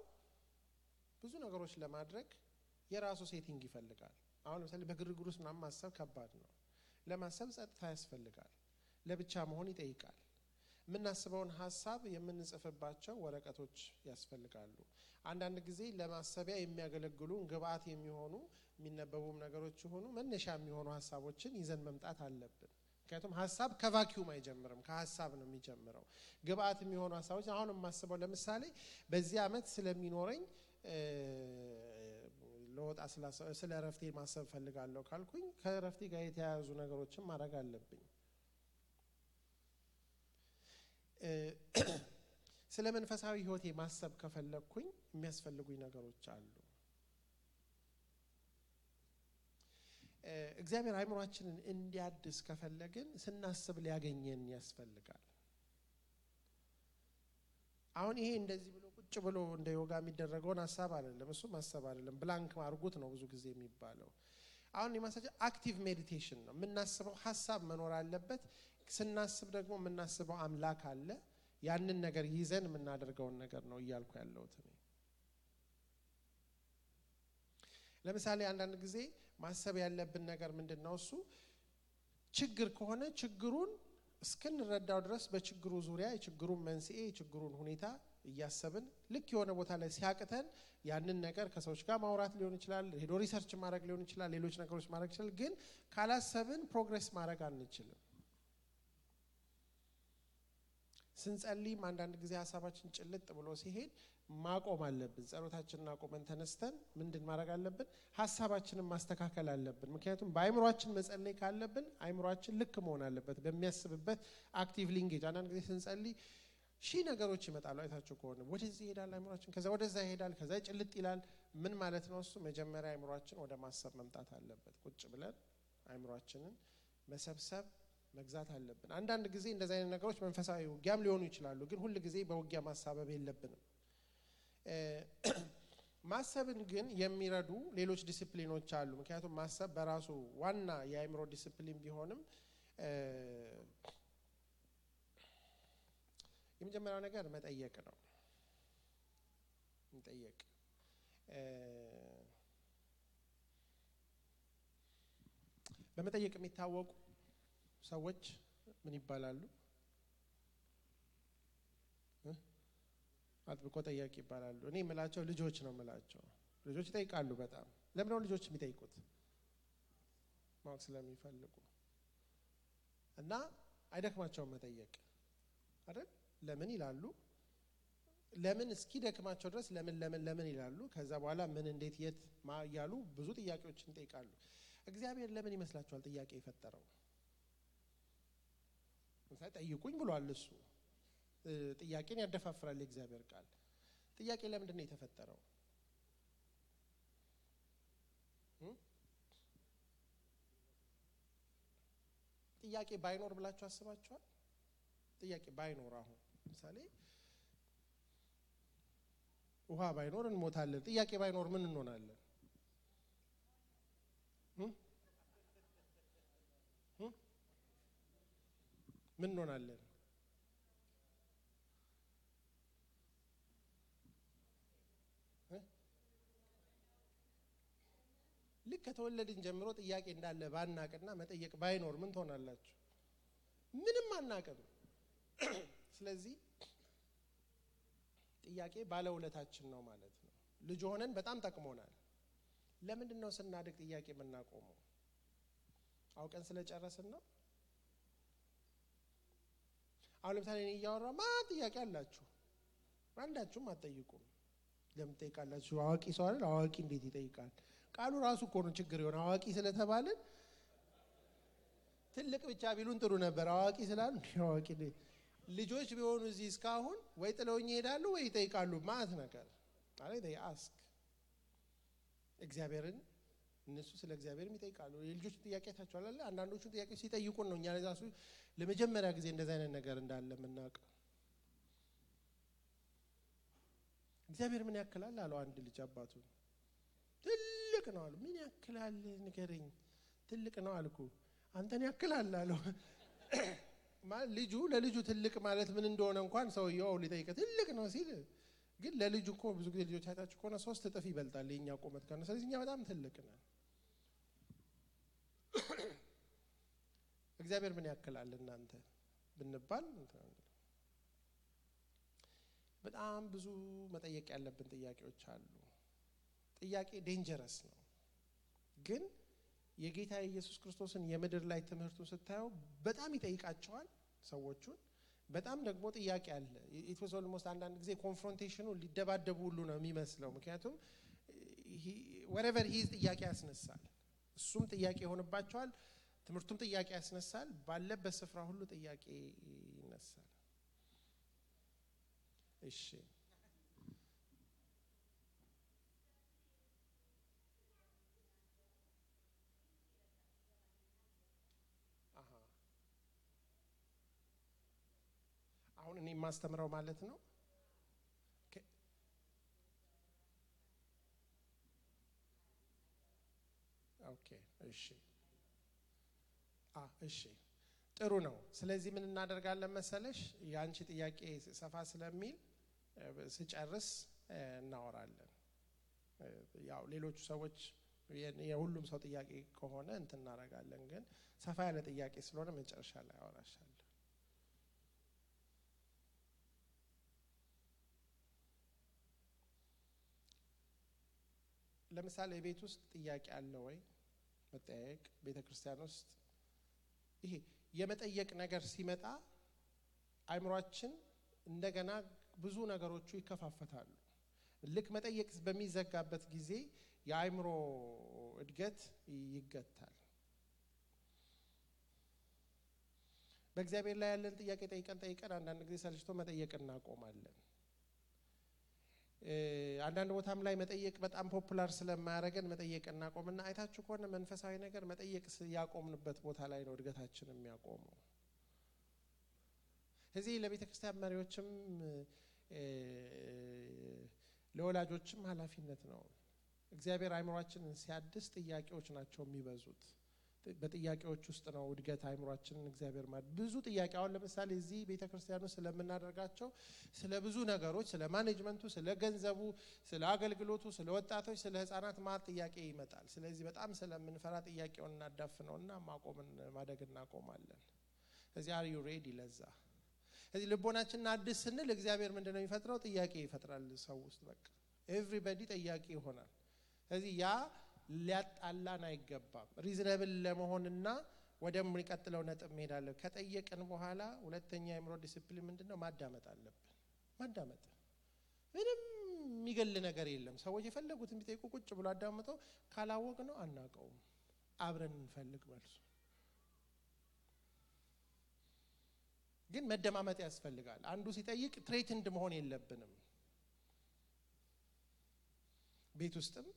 ብዙ ነገሮች ለማድረግ የራሱ ሴቲንግ ይፈልጋል። አሁን ለምሳሌ በግርግር ውስጥ ምናምን ማሰብ ከባድ ነው። ለማሰብ ጸጥታ ያስፈልጋል። ለብቻ መሆን ይጠይቃል። የምናስበውን ሐሳብ የምንጽፍባቸው ወረቀቶች ያስፈልጋሉ። አንዳንድ ጊዜ ለማሰቢያ የሚያገለግሉ ግብአት የሚሆኑ የሚነበቡም ነገሮች ሆኑ መነሻ የሚሆኑ ሐሳቦችን ይዘን መምጣት አለብን። ምክንያቱም ሐሳብ ከቫኪዩም አይጀምርም፣ ከሐሳብ ነው የሚጀምረው። ግብአት የሚሆኑ ሐሳቦች አሁን የማስበው ለምሳሌ በዚህ ዓመት ስለሚኖረኝ ለወጣ ስለ ረፍቴ ማሰብ ፈልጋለሁ ካልኩኝ ከረፍቴ ጋር የተያያዙ ነገሮችን ማድረግ አለብኝ። ስለ መንፈሳዊ ህይወቴ ማሰብ ከፈለኩኝ የሚያስፈልጉኝ ነገሮች አሉ። እግዚአብሔር አይምሮአችንን እንዲያድስ ከፈለግን ስናስብ ሊያገኘን ያስፈልጋል። አሁን ይሄ እንደዚህ ብሎ ቁጭ ብሎ እንደ ዮጋ የሚደረገውን ሐሳብ አይደለም፣ እሱ ማሰብ አይደለም፣ ብላንክ ማርጉት ነው ብዙ ጊዜ የሚባለው። አሁን የማሳጀ አክቲቭ ሜዲቴሽን ነው። የምናስበው ሐሳብ መኖር አለበት። ስናስብ ደግሞ የምናስበው አምላክ አለ። ያንን ነገር ይዘን የምናደርገውን ነገር ነው እያልኩ ያለሁት እኔ። ለምሳሌ አንዳንድ ጊዜ ማሰብ ያለብን ነገር ምንድነው? እሱ ችግር ከሆነ ችግሩን እስክንረዳው ድረስ በችግሩ ዙሪያ የችግሩን መንስኤ የችግሩን ሁኔታ እያሰብን ልክ የሆነ ቦታ ላይ ሲያቅተን ያንን ነገር ከሰዎች ጋር ማውራት ሊሆን ይችላል፣ ሄዶ ሪሰርች ማድረግ ሊሆን ይችላል፣ ሌሎች ነገሮች ማድረግ ይችላል። ግን ካላሰብን ፕሮግሬስ ማድረግ አንችልም። ስንጸልይም አንዳንድ ጊዜ ሐሳባችን ጭልጥ ብሎ ሲሄድ ማቆም አለብን። ጸሎታችንን አቆመን ተነስተን ምንድን ማድረግ አለብን? ሐሳባችንን ማስተካከል አለብን። ምክንያቱም በአይምሮአችን መጸለይ ካለብን አይምሮአችን ልክ መሆን አለበት በሚያስብበት አክቲቭ ሊንጌጅ። አንዳንድ ጊዜ ስንጸልይ ሺህ ነገሮች ይመጣሉ። አይታችሁ ከሆነ ወደዚህ ይሄዳል አይምሮአችን፣ ከዛ ወደዛ ይሄዳል፣ ከዛ ጭልጥ ይላል። ምን ማለት ነው እሱ? መጀመሪያ አይምሮአችን ወደ ማሰብ መምጣት አለበት። ቁጭ ብለን አይምሮአችንን መሰብሰብ መግዛት አለብን። አንዳንድ ጊዜ እንደዚህ አይነት ነገሮች መንፈሳዊ ውጊያም ሊሆኑ ይችላሉ። ግን ሁሉ ጊዜ በውጊያ ማሳበብ የለብንም። ማሰብን ግን የሚረዱ ሌሎች ዲሲፕሊኖች አሉ። ምክንያቱም ማሰብ በራሱ ዋና የአይምሮ ዲሲፕሊን ቢሆንም የመጀመሪያው ነገር መጠየቅ ነው። መጠየቅ በመጠየቅ የሚታወቁ ሰዎች ምን ይባላሉ? አጥብቆ ጠያቂ ይባላሉ። እኔ የምላቸው ልጆች ነው የምላቸው። ልጆች ይጠይቃሉ በጣም። ለምን ነው ልጆች የሚጠይቁት? ማወቅ ስለሚፈልጉ እና አይደክማቸውም መጠየቅ አይደል? ለምን ይላሉ። ለምን እስኪ ደክማቸው ድረስ ለምን ይላሉ። ከዛ በኋላ ምን እንዴት የት እያሉ ብዙ ጥያቄዎችን ይጠይቃሉ። እግዚአብሔር ለምን ይመስላችኋል ጥያቄ የፈጠረው? ምሳሌ ጠይቁኝ ብሏል እሱ። ጥያቄን ያደፋፍራል የእግዚአብሔር ቃል። ጥያቄ ለምንድን ነው የተፈጠረው? ጥያቄ ባይኖር ብላችሁ አስባችኋል? ጥያቄ ባይኖር አሁን ምሳሌ ውሃ ባይኖር እንሞታለን። ጥያቄ ባይኖር ምን እንሆናለን? ምን እንሆናለን? ልክ ከተወለድን ጀምሮ ጥያቄ እንዳለ ባናቅና መጠየቅ ባይኖር ምን ትሆናላችሁ? ምንም አናቅም። ስለዚህ ጥያቄ ባለውለታችን ነው ማለት ነው። ልጅ ሆነን በጣም ጠቅሞናል። ለምንድን ነው ስናድግ ጥያቄ የምናቆመው? አውቀን ስለጨረስን ነው? አሁን ለምሳሌ እኔ እያወራሁ ማን ጥያቄ አላችሁ? አንዳችሁም አትጠይቁም። ለምን ትጠይቃላችሁ? አዋቂ ሰው አይደል? አዋቂ እንዴት ይጠይቃል? ቃሉ ራሱ እኮ ነው ችግር የሆነ። አዋቂ ስለተባልን ትልቅ ብቻ ቢሉን ጥሩ ነበር። አዋቂ ስላሉ አዋቂ ልጆች ቢሆኑ እዚህ እስካሁን ወይ ጥለውኝ ይሄዳሉ ወይ ይጠይቃሉ። ማለት ነገር ማለት አስክ እግዚአብሔርን እነሱ ስለ እግዚአብሔርም ይጠይቃሉ። የልጆች ጥያቄ ታቻለ አይደል? አንዳንዶቹ ጥያቄ ሲጠይቁን ነው እኛ ለዛሱ ለመጀመሪያ ጊዜ እንደዛ አይነት ነገር እንዳለ የምናውቀው። እግዚአብሔር ምን ያክላል አለው አንድ ልጅ አባቱ። ትልቅ ነው አለው። ምን ያክላል ንገረኝ። ትልቅ ነው አልኩ። አንተን ያክላል አለው። ማለት ልጁ ለልጁ ትልቅ ማለት ምን እንደሆነ እንኳን ሰውየው ሊጠይቅ ትልቅ ነው ሲል፣ ግን ለልጁ እኮ ብዙ ጊዜ ልጆች አይታችሁ ከሆነ 3 እጥፍ ይበልጣል የኛ ቁመት ከሆነ። ስለዚህ እኛ በጣም ትልቅ ነን። እግዚአብሔር ምን ያክላል እናንተ ብንባል በጣም ብዙ መጠየቅ ያለብን ጥያቄዎች አሉ። ጥያቄ ዴንጀረስ ነው። ግን የጌታ ኢየሱስ ክርስቶስን የምድር ላይ ትምህርቱን ስታዩ በጣም ይጠይቃቸዋል ሰዎቹን። በጣም ደግሞ ጥያቄ አለ። ኢት ዋዝ ኦልሞስት አንዳንድ ጊዜ ኮንፍሮንቴሽኑ ሊደባደቡ ሁሉ ነው የሚመስለው። ምክንያቱም wherever he is ጥያቄ ያስነሳል እሱም ጥያቄ ይሆንባቸዋል ትምርቱም ጥያቄ ያስነሳል ባለበት ስፍራ ሁሉ ጥያቄ ይነሳል እሺ አሁን እኔ ማስተምረው ማለት ነው ኦኬ እሺ እሺ ጥሩ ነው ስለዚህ ምን እናደርጋለን መሰለሽ ያንቺ ጥያቄ ሰፋ ስለሚል ስጨርስ እናወራለን ያው ሌሎች ሰዎች የሁሉም ሰው ጥያቄ ከሆነ እንትን እናደርጋለን ግን ሰፋ ያለ ጥያቄ ስለሆነ መጨረሻ ላይ አወራሻለሁ ለምሳሌ ቤት ውስጥ ጥያቄ አለ ወይ መጠየቅ ቤተክርስቲያን ውስጥ ይሄ የመጠየቅ ነገር ሲመጣ አይምሮአችን እንደገና ብዙ ነገሮቹ ይከፋፈታሉ ልክ መጠየቅ በሚዘጋበት ጊዜ የአይምሮ እድገት ይገታል በእግዚአብሔር ላይ ያለን ጥያቄ ጠይቀን አንዳንድ ጊዜ ሰልችቶ መጠየቅ እናቆማለን አንዳንድ ቦታም ላይ መጠየቅ በጣም ፖፑላር ስለማያረገን መጠየቅ እናቆምና አይታችሁ ከሆነ መንፈሳዊ ነገር መጠየቅ ያቆምንበት ቦታ ላይ ነው እድገታችን የሚያቆመው እዚህ ለቤተክርስቲያን መሪዎችም ለወላጆችም ኃላፊነት ነው እግዚአብሔር አይምሮአችንን ሲያድስ ጥያቄዎች ናቸው የሚበዙት በጥያቄዎች ውስጥ ነው እድገት አይምሮአችንን እግዚአብሔር ብዙ ጥያቄ አሁን ለምሳሌ እዚህ ቤተክርስቲያኑ ስለምናደርጋቸው ስለ ብዙ ነገሮች ስለ ማኔጅመንቱ ስለ ገንዘቡ ስለ አገልግሎቱ ስለ ወጣቶች ስለ ህፃናት ማለት ጥያቄ ይመጣል ስለዚህ በጣም ስለምንፈራ ጥያቄውን እናዳፍነውና ማደግ እናቆማለን እዚህ are you ready ለዛ እዚህ ልቦናችንን አድስ ስንል እግዚአብሔር ምንድነው የሚፈጥረው ጥያቄ ይፈጥራል ሰው ውስጥ በቃ everybody ጥያቄ ይሆናል እዚህ ያ ሊያጣላን አይገባም ሪዝነብል ለመሆንና ወደሚቀጥለው ነጥብ መሄዳለን ከጠየቅን በኋላ ሁለተኛ የአይምሮ ዲሲፕሊን ምንድነው ማዳመጥ አለብን ማዳመጥ ምንም የሚገል ነገር የለም ሰዎች የፈለጉትን ቢጠይቁ ቁጭ ብሎ አዳምጠው ካላወቅ ነው አናቀው አብረን እንፈልግ መልሱ ግን መደማመጥ ያስፈልጋል አንዱ ሲጠይቅ ትሬትንድ መሆን የለብንም ቤት ውስጥም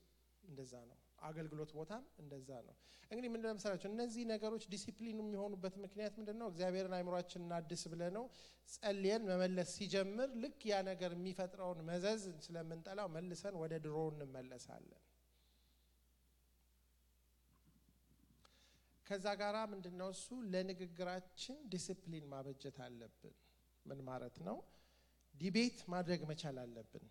እንደዛ ነው አገልግሎት ቦታም እንደዛ ነው እንግዲህ ምን ለምሳሌ እነዚህ ነገሮች ዲሲፕሊን የሚሆኑበት ምክንያት ምንድነው እግዚአብሔርን አይምሮአችንን አድስ ብለነው ጸልየን መመለስ ሲጀምር ልክ ያ ነገር የሚፈጥረውን መዘዝ ስለምንጠላው መልሰን ወደ ድሮ እንመለሳለን ከዛ ጋራ ምንድነው እሱ ለንግግራችን ዲሲፕሊን ማበጀት አለብን ምን ማለት ነው ዲቤት ማድረግ መቻል አለብን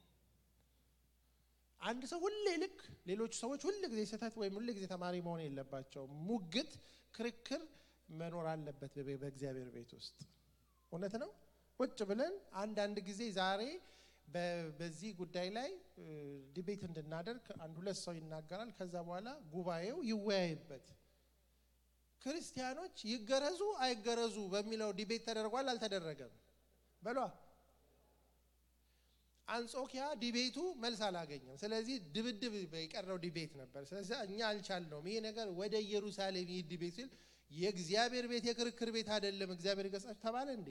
አንድ ሰው ሁሌ ልክ ሌሎች ሰዎች ሁሉ ጊዜ ሰታት ወይ ሁሉ ጊዜ ተማሪ መሆን የለባቸው ሙግት ክርክር መኖር አለበት በእግዚአብሔር ቤት ውስጥ እውነት ነው ቁጭ ብለን አንድ ጊዜ ዛሬ በዚህ ጉዳይ ላይ ዲቤት እንድናደርግ አንድ ሁለት ሰው ይናገራል ከዛ በኋላ ጉባኤው ይወያይበት ክርስቲያኖች ይገረዙ አይገረዙ በሚለው ዲቤት ተደርጓል አልተደረገም በሏ አንጾኪያ ዲቤቱ መልስ አላገኘም ስለዚህ ድብድብ በቀረው ዲቤት ነበር ስለዚህ እኛ አልቻልነውም ይሄ ነገር ወደ ኢየሩሳሌም ዲቤት ሲል የእግዚአብሔር ቤት የክርክር ቤት አይደለም እግዚአብሔር ይገጻችሁ ተባለ እንዴ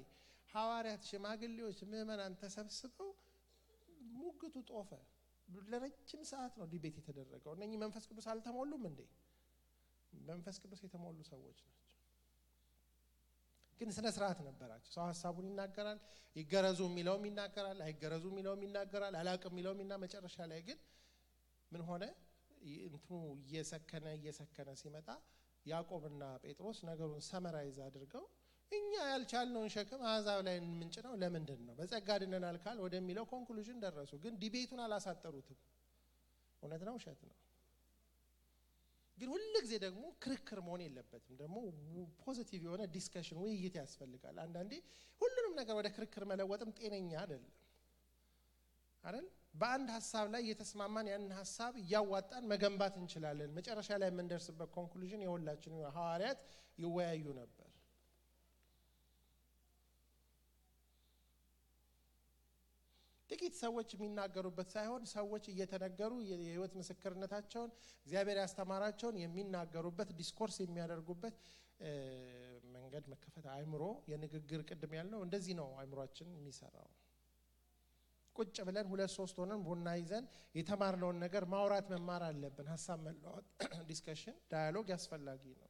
ሐዋርያት ሽማግሌዎች ምእመናን ተሰብስበው ሙግቱ ጦፈ ለረጅም ሰዓት ነው ዲቤት የተደረገው እነኚህ መንፈስ ቅዱስ አልተሞሉም እንዴ መንፈስ ቅዱስ የተሞሉ ሰዎች ናቸው ግን ስነ ስርዓት ነበራቸው ሰው ሐሳቡን ይናገራል ይገረዙ የሚለውም ይናገራል አይገረዙ የሚለውም ይናገራል አላቅም የሚለውምና መጨረሻ ላይ ግን ምን ሆነ እንትኑ እየሰከነ ሲመጣ ያዕቆብና ጴጥሮስ ነገሩን ሰመራይዝ አድርገው እኛ ያልቻልነውን ሸክም አዛብ ላይ ምንጭነው ለምንድን ነው በጸጋ ድነናል ካል ወደሚለው ኮንክሉዥን ደረሱ ግን ዲቤቱን አላሳጠሩትም እውነት ነው ውሸት ነው ግን ሁሉ ጊዜ ደግሞ ክርክር መሆን የለበትም ደግሞ ፖዚቲቭ የሆነ ዲስከሽን ውይይት ያስፈልጋል አንዳንዴ ሁሉንም ነገር ወደ ክርክር መለወጥም ጤነኛ አይደለም አይደል በአንድ ሐሳብ ላይ የተስማማን ያን ሐሳብ ያዋጣን መገንባት እንችላለን መጨረሻ ላይ የምንደርስበት ኮንክሉዥን የሁላችን ሐዋርያት ይወያዩ ነበር ጥቂት ሰዎች የሚናገሩበት ሳይሆን ሰዎች እየተነገሩ የህይወት ምስክርነታቸውን እግዚአብሔር ያስተማራቸውን የሚናገሩበት ዲስኮርስ የሚያደርጉበት መንገድ መከፈት አእምሮ የንግግር ቅድም ያልነው እንደዚህ ነው አእምሮአችን የሚሰራው ቁጭ ብለን 2-3 ሆነን ቡና ይዘን የተማርነውን ነገር ማውራት መማር አለብን ሐሳብ መለዋወጥ ዲስከሽን ዳያሎግ ያስፈልጋል ነው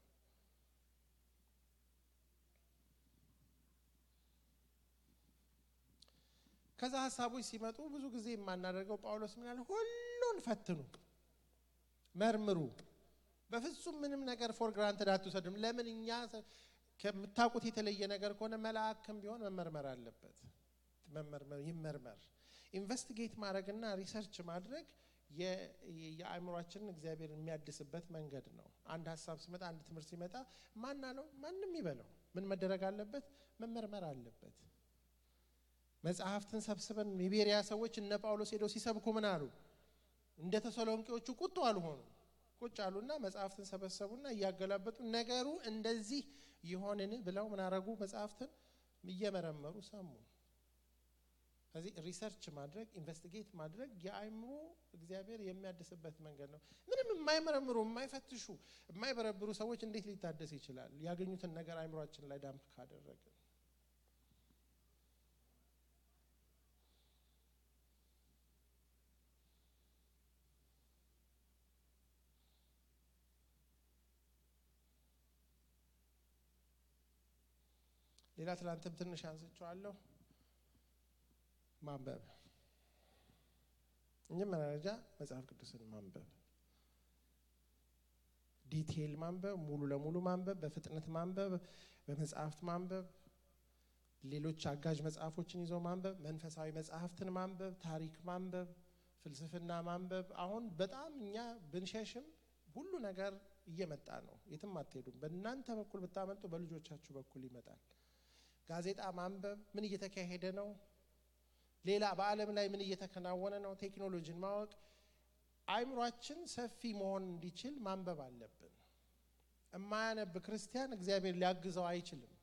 ከዛ ሐሳቦች ሲመጡ ብዙ ጊዜ የማናደርገው ጳውሎስ ምን ያለ ሁሉን ፈትኑ መርምሩ በፍጹም ምንም ነገር ፎር ግራንትድ አትወስዱም ለምንኛ ከምታውቁት የተለየ ነገር ከሆነ መልአክም ቢሆን መመርመር አለበት ይመርመር ኢንቨስቲጌት ማድረግና ሪሰርች ማድረግ የአእምሮአችንን እግዚአብሔር የሚያድስበት መንገድ ነው አንድ ሐሳብ ሲመጣ አንድ ትምህርት ሲመጣ ማናለው ማንንም ይበለው ምን መደረግ አለበት መመርመር አለበት መጽሐፍትን ሰብስበን የቤሪያ ሰዎች እነ ጳውሎስ ሄደው ሲሰብኩ ምን አሉ እንደ ተሰሎንቄዎቹ ቁጡ አልሆኑ ቁጭ አሉና መጽሐፍትን ሰበሰቡና ያገላበጡ ነገሩ እንደዚህ ይሆንን ብለው ምን አረጉ መጽሐፍትን እየመረመሩ ሰሙ ስለዚህ ሪሰርች ማድረግ ኢንቨስቲጌት ማድረግ የአእምሮ እግዚአብሔር የሚያድስበት መንገድ ነው ምንም የማይመረምሩ የማይፈትሹ የማይበረብሩ ሰዎች እንዴት ሊታደስ ይችላል ያገኙትን ነገር አእምሮአችን ላይ ዳምፕ ካደረገ ሌላ ትላንትም ትንሽ አንስቻለሁ ማንበብ እንጀምራጃ መጽሐፍ ቅዱስን ማንበብ ዲቴል ማንበብ ሙሉ ለሙሉ ማንበብ በፍጥነት ማንበብ በመጽሐፍት ማንበብ ሌሎች አጋዥ መጽሐፎችን ይዞ ማንበብ መንፈሳዊ መጽሐፍትን ማንበብ ታሪክ ማንበብ ፍልስፍና ማንበብ አሁን በጣም እኛ ብንሸሽም ሁሉ ነገር እየመጣ ነው የትም አትሄዱም በእናንተ በኩል ብታመጡ በልጆቻችሁ በኩል ይመጣል ጋዜጣ ማንበብ ምን እየተካሄደ ነው ሌላ በአለም ላይ ምን እየተከናወነ ነው ቴክኖሎጂን ማወቅ አእምሮአችን ሰፊ መሆን እንዲችል ማንበብ አለብን የማያነብ ክርስቲያን እግዚአብሔር ሊያግዘው አይችልም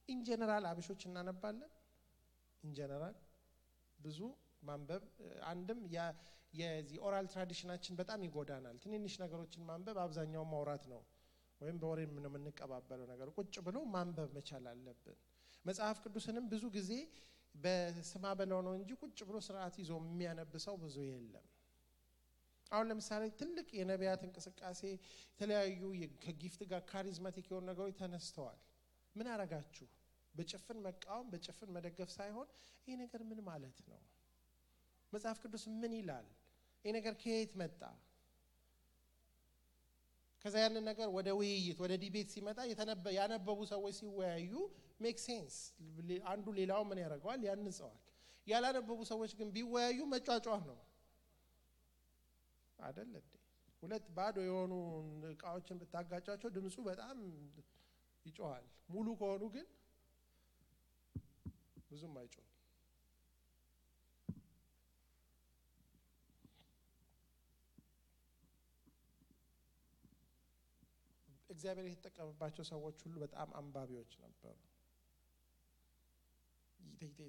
ኢን ጀነራል አብሾች እናነባለን ኢን ጀነራል ብዙ ማንበብ አንድም የዚህ ኦራል ትራዲሽናችን በጣም ይጎዳናል ትንንሽ ነገሮችን ማንበብ አብዛኛው ማውራት ነው ወይም በወሬ ምን የምንቀባበለው ነገር ቁጭ ብሎ ማንበብ መቻል አለብን መጽሐፍ ቅዱስንም ብዙ ጊዜ በስማ በለው ነው እንጂ ቁጭ ብሎ ስርዓት ይዞ የሚያነብሰው ብዙ የለም አሁን ለምሳሌ ትልቅ የነቢያት እንቅስቃሴ የተለያዩ ከጊፍት ጋር ካሪዝማቲክ የሆኑ ነገሮች ተነስተዋል ምን አረጋችሁ በጭፍን መቃወም በጭፍን መደገፍ ሳይሆን ይሄ ነገር ምን ማለት ነው መጽሐፍ ቅዱስ ምን ይላል ይሄ ነገር ከየት መጣ ከዛ ያንን ነገር ወደ ውይይት ወደ ዲቤት ሲመጣ ያነበቡ ሰዎች ሲወያዩ ሜክ ሴንስ አንዱ ሌላው ምን ያደርጋል ያንጸዋል ያላነበቡ ሰዎች ግን ቢወያዩ መጫጫህ ነው አይደል እንዴ ሁለት ባዶ የሆኑ እቃዎችን ብታጋጫቸው ድምጹ በጣም ይጮሃል ሙሉ ከሆኑ ግን ብዙም አይጮህ እግዚአብሔር የተጠቀመባቸው ሰዎች ሁሉ በጣም አንባቢዎች ነበሩ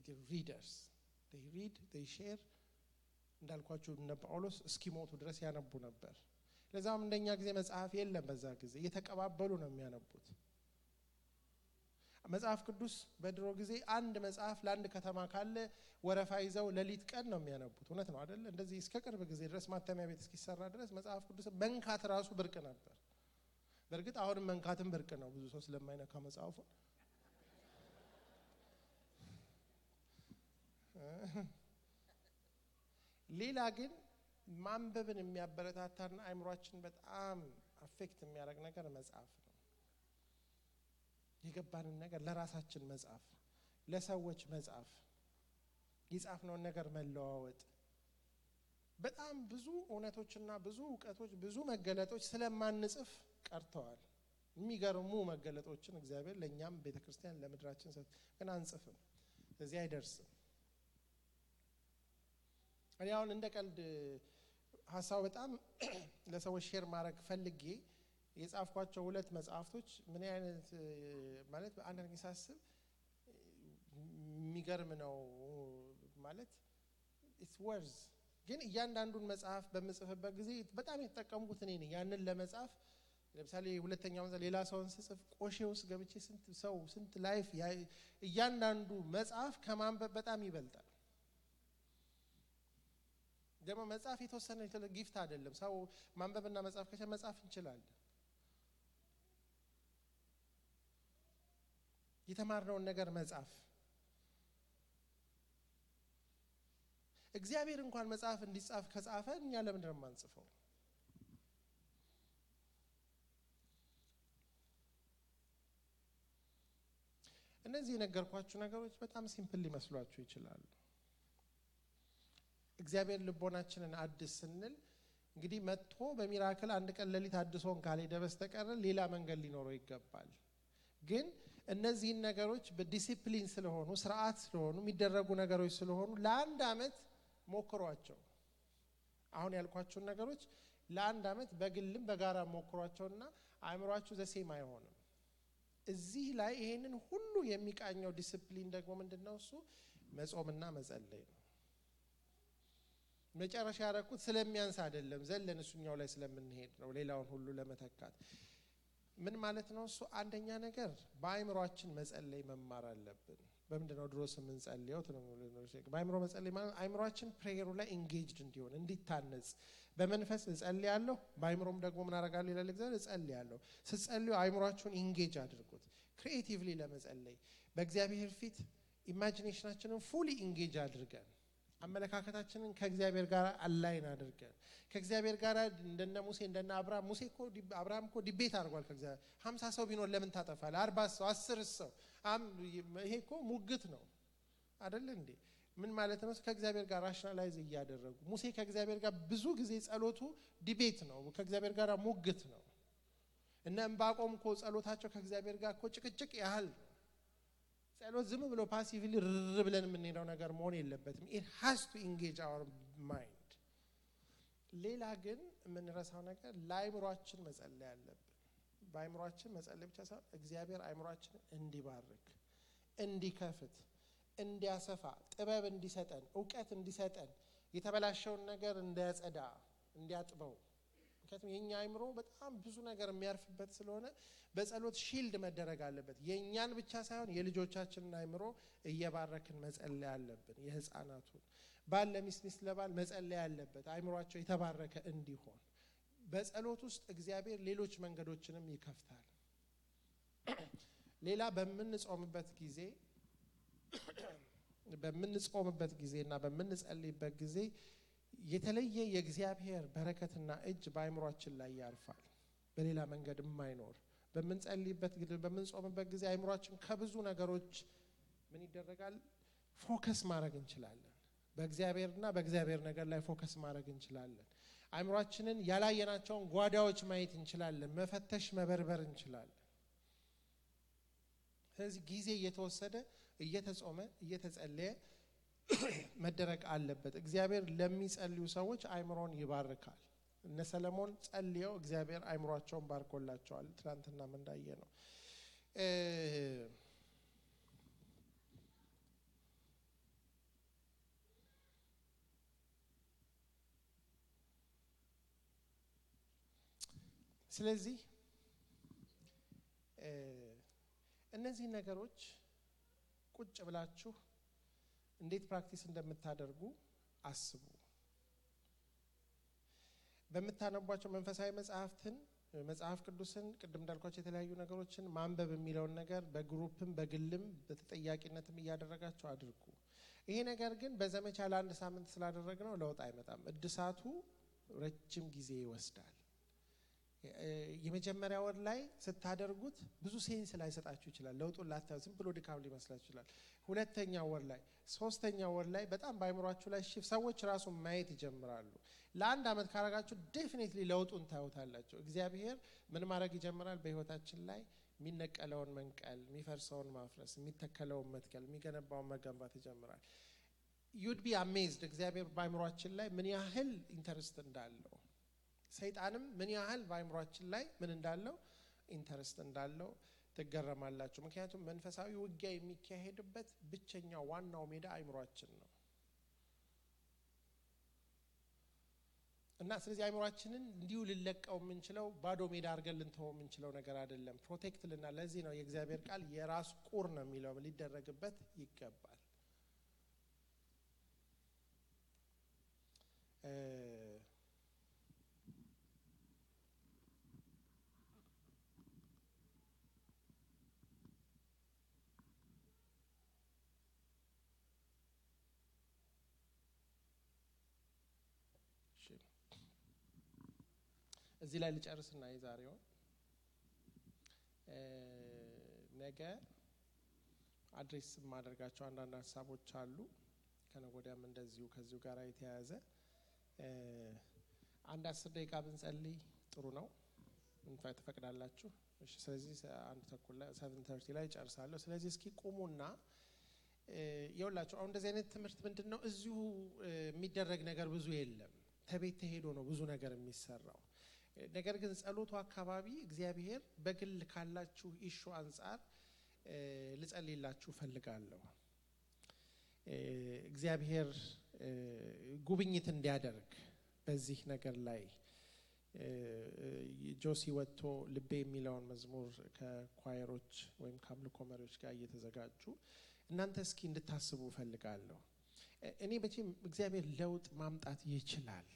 they readers they read they share እንዳልኳችሁ እነ ጳውሎስ እስኪሞቱ ድረስ ያነቡ ነበር ለዛም እንደኛ ጊዜ መጽሐፍ የለም በዛ ጊዜ እየተቀባበሉ ነው የሚያነቡት መጽሐፍ ቅዱስ በድሮ ጊዜ አንድ መጽሐፍ ለአንድ ከተማ ካለ ወረፋ ይዘው ለሊት ቀን ነው የሚያነቡት እውነት ነው አይደል እንደዚህ እስከ ቅርብ ጊዜ ድረስ ማተሚያ ቤት እስኪሰራ ድረስ መጽሐፍ ቅዱስ መንካት ራሱ ብርቅ ነበር በርግጥ አሁንም መንካትም ብርቅ ነው ብዙ ሰው ስለማይነካ መጽሐፉ ሌላ ግን ማንበብን የሚያበረታታና አእምሮአችን በጣም አፌክት የሚያደርግ ነገር መጽሐፍ ነው የገባንን ነገር ለራሳችን መጽሐፍ ለሰዎች መጽሐፍ ይጻፍነው ነገር መለዋወጥ በጣም ብዙ እውነቶችና ብዙ ዕውቀቶች ብዙ መገለጦች ስለማንጽፍ ቀርተዋል የሚገርሙ መገለጦችን እግዚአብሔር ለኛም ቤተክርስቲያን ለምድራችን ግን አንጽፍም ስለዚህ አይደርስም እኔ አሁን እንደ ቀልድ ሐሳብ በጣም ለሰዎች ሼር ማድረግ ፈልጌ የጻፍኳቸው ሁለት መጽሐፍቶች ምን አይነት ማለት አንድ ነገር ሳስብ የሚገርም ነው ማለት it's worth ግን እያንዳንዱን መጽሐፍ በመጽፈበት ጊዜ በጣም የተጠቀምኩት እኔ ነኝ ያንን ለመጻፍ ለምሳሌ ሁለተኛው ሌላ ሰውን ስጽፍ ቆሼ ውስጥ ገብቼ ስንት ላይፍ እያንዳንዱ መጽሐፍ ከማንበብ በጣም ይበልጣል ደግሞ መጽሐፍ የተወሰነ ጊፍት አይደለም ሰው ማንበብና መጽሐፍ ከቻለ መጽሐፍ እንችላለን የተማርነውን ነገር መጽሐፍ እግዚአብሔር እንኳን መጽሐፍ እንዲጻፍ ከጻፈ እኛ ለምን ነው ማንጽፈው እነዚህ ነገርኳችሁ ነገሮች በጣም ሲምፕል ሊመስሏችሁ ይችላሉ እግዚአብሔር ልቦናችንን አድስ ስንል እንግዲህ መጥቶ በሚራክል አንድ ቀን ለሊት አድሶን ካልሄደ በስተቀር ሌላ መንገድ ሊኖረው ይገባል ግን እነዚህ ነገሮች በዲሲፕሊን ስለሆኑ ስርዓት ስለሆኑ የሚደረጉ ነገሮች ስለሆኑ ለአንድ አመት ሞክሯቸው አሁን ያልኳችሁ ነገሮች ለአንድ አመት በግልም በጋራ ሞክሯቸውና አእምሯችሁ ዘሴም አይሆንም እዚህ ላይ ይሄንን ሁሉ የሚቃኘው ዲሲፕሊን ደግሞ ምንድነው እሱ መጾምና መጸለይ ነው መጨረሻ ያረኩት ስለሚያንስ አይደለም ዘለን እሱኛው ላይ ስለምንሄድ ነው ሌላውን ሁሉ ለመተካት ምን ማለት ነው እሱ አንደኛ ነገር በአእምሯችን መጸለይ መማር አለብን በመንደነው ድሮስ ምን ጸልየው በአእምሮ መጸለይ ማለት አእምሯችን ፕሬየሩ ላይ ኢንጌጅድ እንዲሆን እንዲታነጽ በመንፈስ እጸልያለሁ በአእምሮም ደግሞ ምን አረጋለሁ ይላል እግዚአብሔር እጸልያለሁ ስጸልዩ አእምሯችሁን ኢንጌጅ አድርጉት ክሪኤቲቭሊ ለመጸለይ በእግዚአብሔር ፊት ኢማጂኔሽናችንን ፉሊ ኢንጌጅ አድርገን አመለካከታችንን ከእግዚአብሔር ጋር አላይን አድርገን ከእግዚአብሔር ጋር እንደነ ሙሴ እንደነ አብርሃም እኮ ዲቤት አድርጓል ከእግዚአብሔር 50 ሰው ቢኖር ለምን ታጠፋለህ 40 ሰው 10 ሰው ይሄ እኮ ሙግት ነው አይደል እንዴ ምን ማለት ነው ከእግዚአብሔር ጋር ራሽናላይዝ ያደረጉ ሙሴ ከእግዚአብሔር ጋር ብዙ ጊዜ ጸሎቱ ዲቤት ነው ከእግዚአብሔር ጋር ሙግት ነው እና እንባቆም እኮ ጸሎታቸው ከእግዚአብሔር ጋር እኮ ጭቅጭቅ ያህል ጸሎት ዝም ብሎ ፓሲቭሊ ብለን የምንሄደው ነገር መሆን የለበትም it has to engage our mind ሌላ ግን የምንረሳው ነገር ለአእምሯችን መጸለይ አለብን በአእምሯችን መጸለይ ብቻ ሳይሆን እግዚአብሔር አእምሯችንን እንዲባርክ እንዲከፍት እንዲያሰፋ ጥበብ እንዲሰጠን ዕውቀት እንዲሰጠን የተበላሸውን ነገር እንዲያጸዳ እንዲያጥበው ምክንያቱም የኛ አእምሮ በጣም ብዙ ነገር የሚያርፍበት ስለሆነ በጸሎት ሺልድ መደረግ አለበት የኛን ብቻ ሳይሆን የልጆቻችንን አእምሮ እየባረክን መጸለይ አለብን የህፃናቱን ባል ለሚስት ለባል መጸለይ አለበት አእምሯቸው የተባረከ እንዲሆን በጸሎት ውስጥ እግዚአብሔር ሌሎች መንገዶችንም ይከፍታል ሌላ በምንጾምበት ጊዜና በምንጸልይበት ጊዜ የተለየ የእግዚአብሔር በረከትና እጅ በአእምሯችን ላይ ያርፋል በሌላ መንገድ የማይኖር በምንጸልይበት ጊዜ በምንጾምበት ጊዜ አእምሯችን ከብዙ ነገሮች ምን ይደረጋል ፎከስ ማድረግ እንችላለን በእግዚአብሔርና በእግዚአብሔር ነገር ላይ ፎከስ ማድረግ እንችላለን አእምሯችንን ያላየናቸውን ጓዳዎች ማየት እንችላለን መፈተሽ መበርበር እንችላለን ስለዚህ ጊዜ እየተወሰደ እየተጾመ እየተጸለየ መደረግ አለበት እግዚአብሔር ለሚጸልዩ ሰዎች አእምሮን ይባርካል እነ ሰለሞን ጸልየው እግዚአብሔር አእምሯቸውን ባርኮላቸዋል ትናንትና ምን እንዳየ ነው ስለዚህ እነዚህ ነገሮች ቁጭ ብላችሁ እንዴት ፕራክቲስ እንደምታደርጉ አስቡ በመታነቧቸው መንፈሳዊ መጽሐፍ ቅዱስን ቅድም እንዳልኳችሁ የተለያዩ ነገሮችን ማንበብ የሚለው ነገር በግሩፕም በግልም በተጠያቂነትም ያደረጋችሁ አድርጉ ይሄ ነገር ግን በዘመቻ ለአንድ ሳምንት ስላደረግነው ለውጥ አይመጣም እድሳቱ ረጅም ጊዜ ይወስዳል የመጀመሪያ ወር ላይ ስታደርጉት ብዙ ሴንስ ላይ ሰጣችሁ ይችላል ለውጡን ላታዩ ዝም ብሎ ድካም ሊመስላችሁ ይችላል ሁለተኛ ወር ላይ ሶስተኛ ወር ላይ በጣም ባይምሯችሁ ላይ ሰዎች ራሱ ማየት ይጀምራሉ ለአንድ አመት ካረጋችሁ ዴፊኒትሊ ለውጡን ታዩታላችሁ እግዚአብሔር ምን ማድረግ ይጀምራል በህይወታችን ላይ የሚነቀለውን መንቀል የሚፈርሰውን ማፍረስ የሚተከለውን መትከል የሚገነባውን መገንባት ይጀምራል you'd be amazed እግዚአብሔር ባይምሯችን ላይ ምን ያህል ኢንተረስት እንዳለው ሰይጣንም ምን ያህል በአይምሮአችን ላይ ምን እንዳለው ኢንተረስት እንዳለው ተገረማላችሁ ምክንያቱም መንፈሳዊ ውጊያ የሚካሄድበት ብቸኛው ዋናው ሜዳ አይምሮአችን ነው እና ስለዚህ አይምሮአችንን እንዲሁ ልለቀው የምንችለው ባዶ ሜዳ አድርገን ልንተው የምንችለው ነገር አይደለም ፕሮቴክት ልና ለዚህ ነው የእግዚአብሔር ቃል የራስ ቁር ነው የሚለው ሊደረግበት ይገባል እዚህ ላይ ልጨርስና የዛሬው ነገ አድሬስ ማድረጋቸው አንዳንድ ሐሳቦች አሉ ከነጎዳም እንደዚሁ ከዚሁ ጋር የተያያዘ አንድ 10 ደቂቃ ብንጸልይ ጥሩ ነው እንፋይ ተፈቅዳላችሁ እሺ ስለዚህ አንድ ተኩል ላይ 7:30 ላይ ጨርሳለሁ ስለዚህ እስኪ ቁሙና ይኸውላችሁ አሁን እንደዚህ አይነት ትምህርት ምንድነው እዚሁ የሚደረግ ነገር ብዙ የለም ተቤት ተሄዶ ነው ብዙ ነገር የሚሰራው ነገር ግን ጸሎቱ አካባቢ እግዚአብሔር በግል ካላችሁ ኢሹ አንፃር ልጸልይላችሁ ፈልጋለሁ እግዚአብሔር ጉብኝት እንዲያደርግ በዚህ ነገር ላይ ጆሲ ወጥቶ ልቤ የሚለውን መዝሙር ከኳየሮች ወይም ከአምልኮ መሪዎች ጋር እየተዘጋጁ እናንተ እስኪ እንድታስቡ ፈልጋለሁ እኔ በቺም እግዚአብሔር ለውጥ ማምጣት ይችላል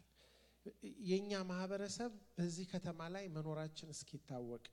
የኛ ማህበረሰብ በዚህ ከተማ ላይ መኖራችን እስኪታወቅ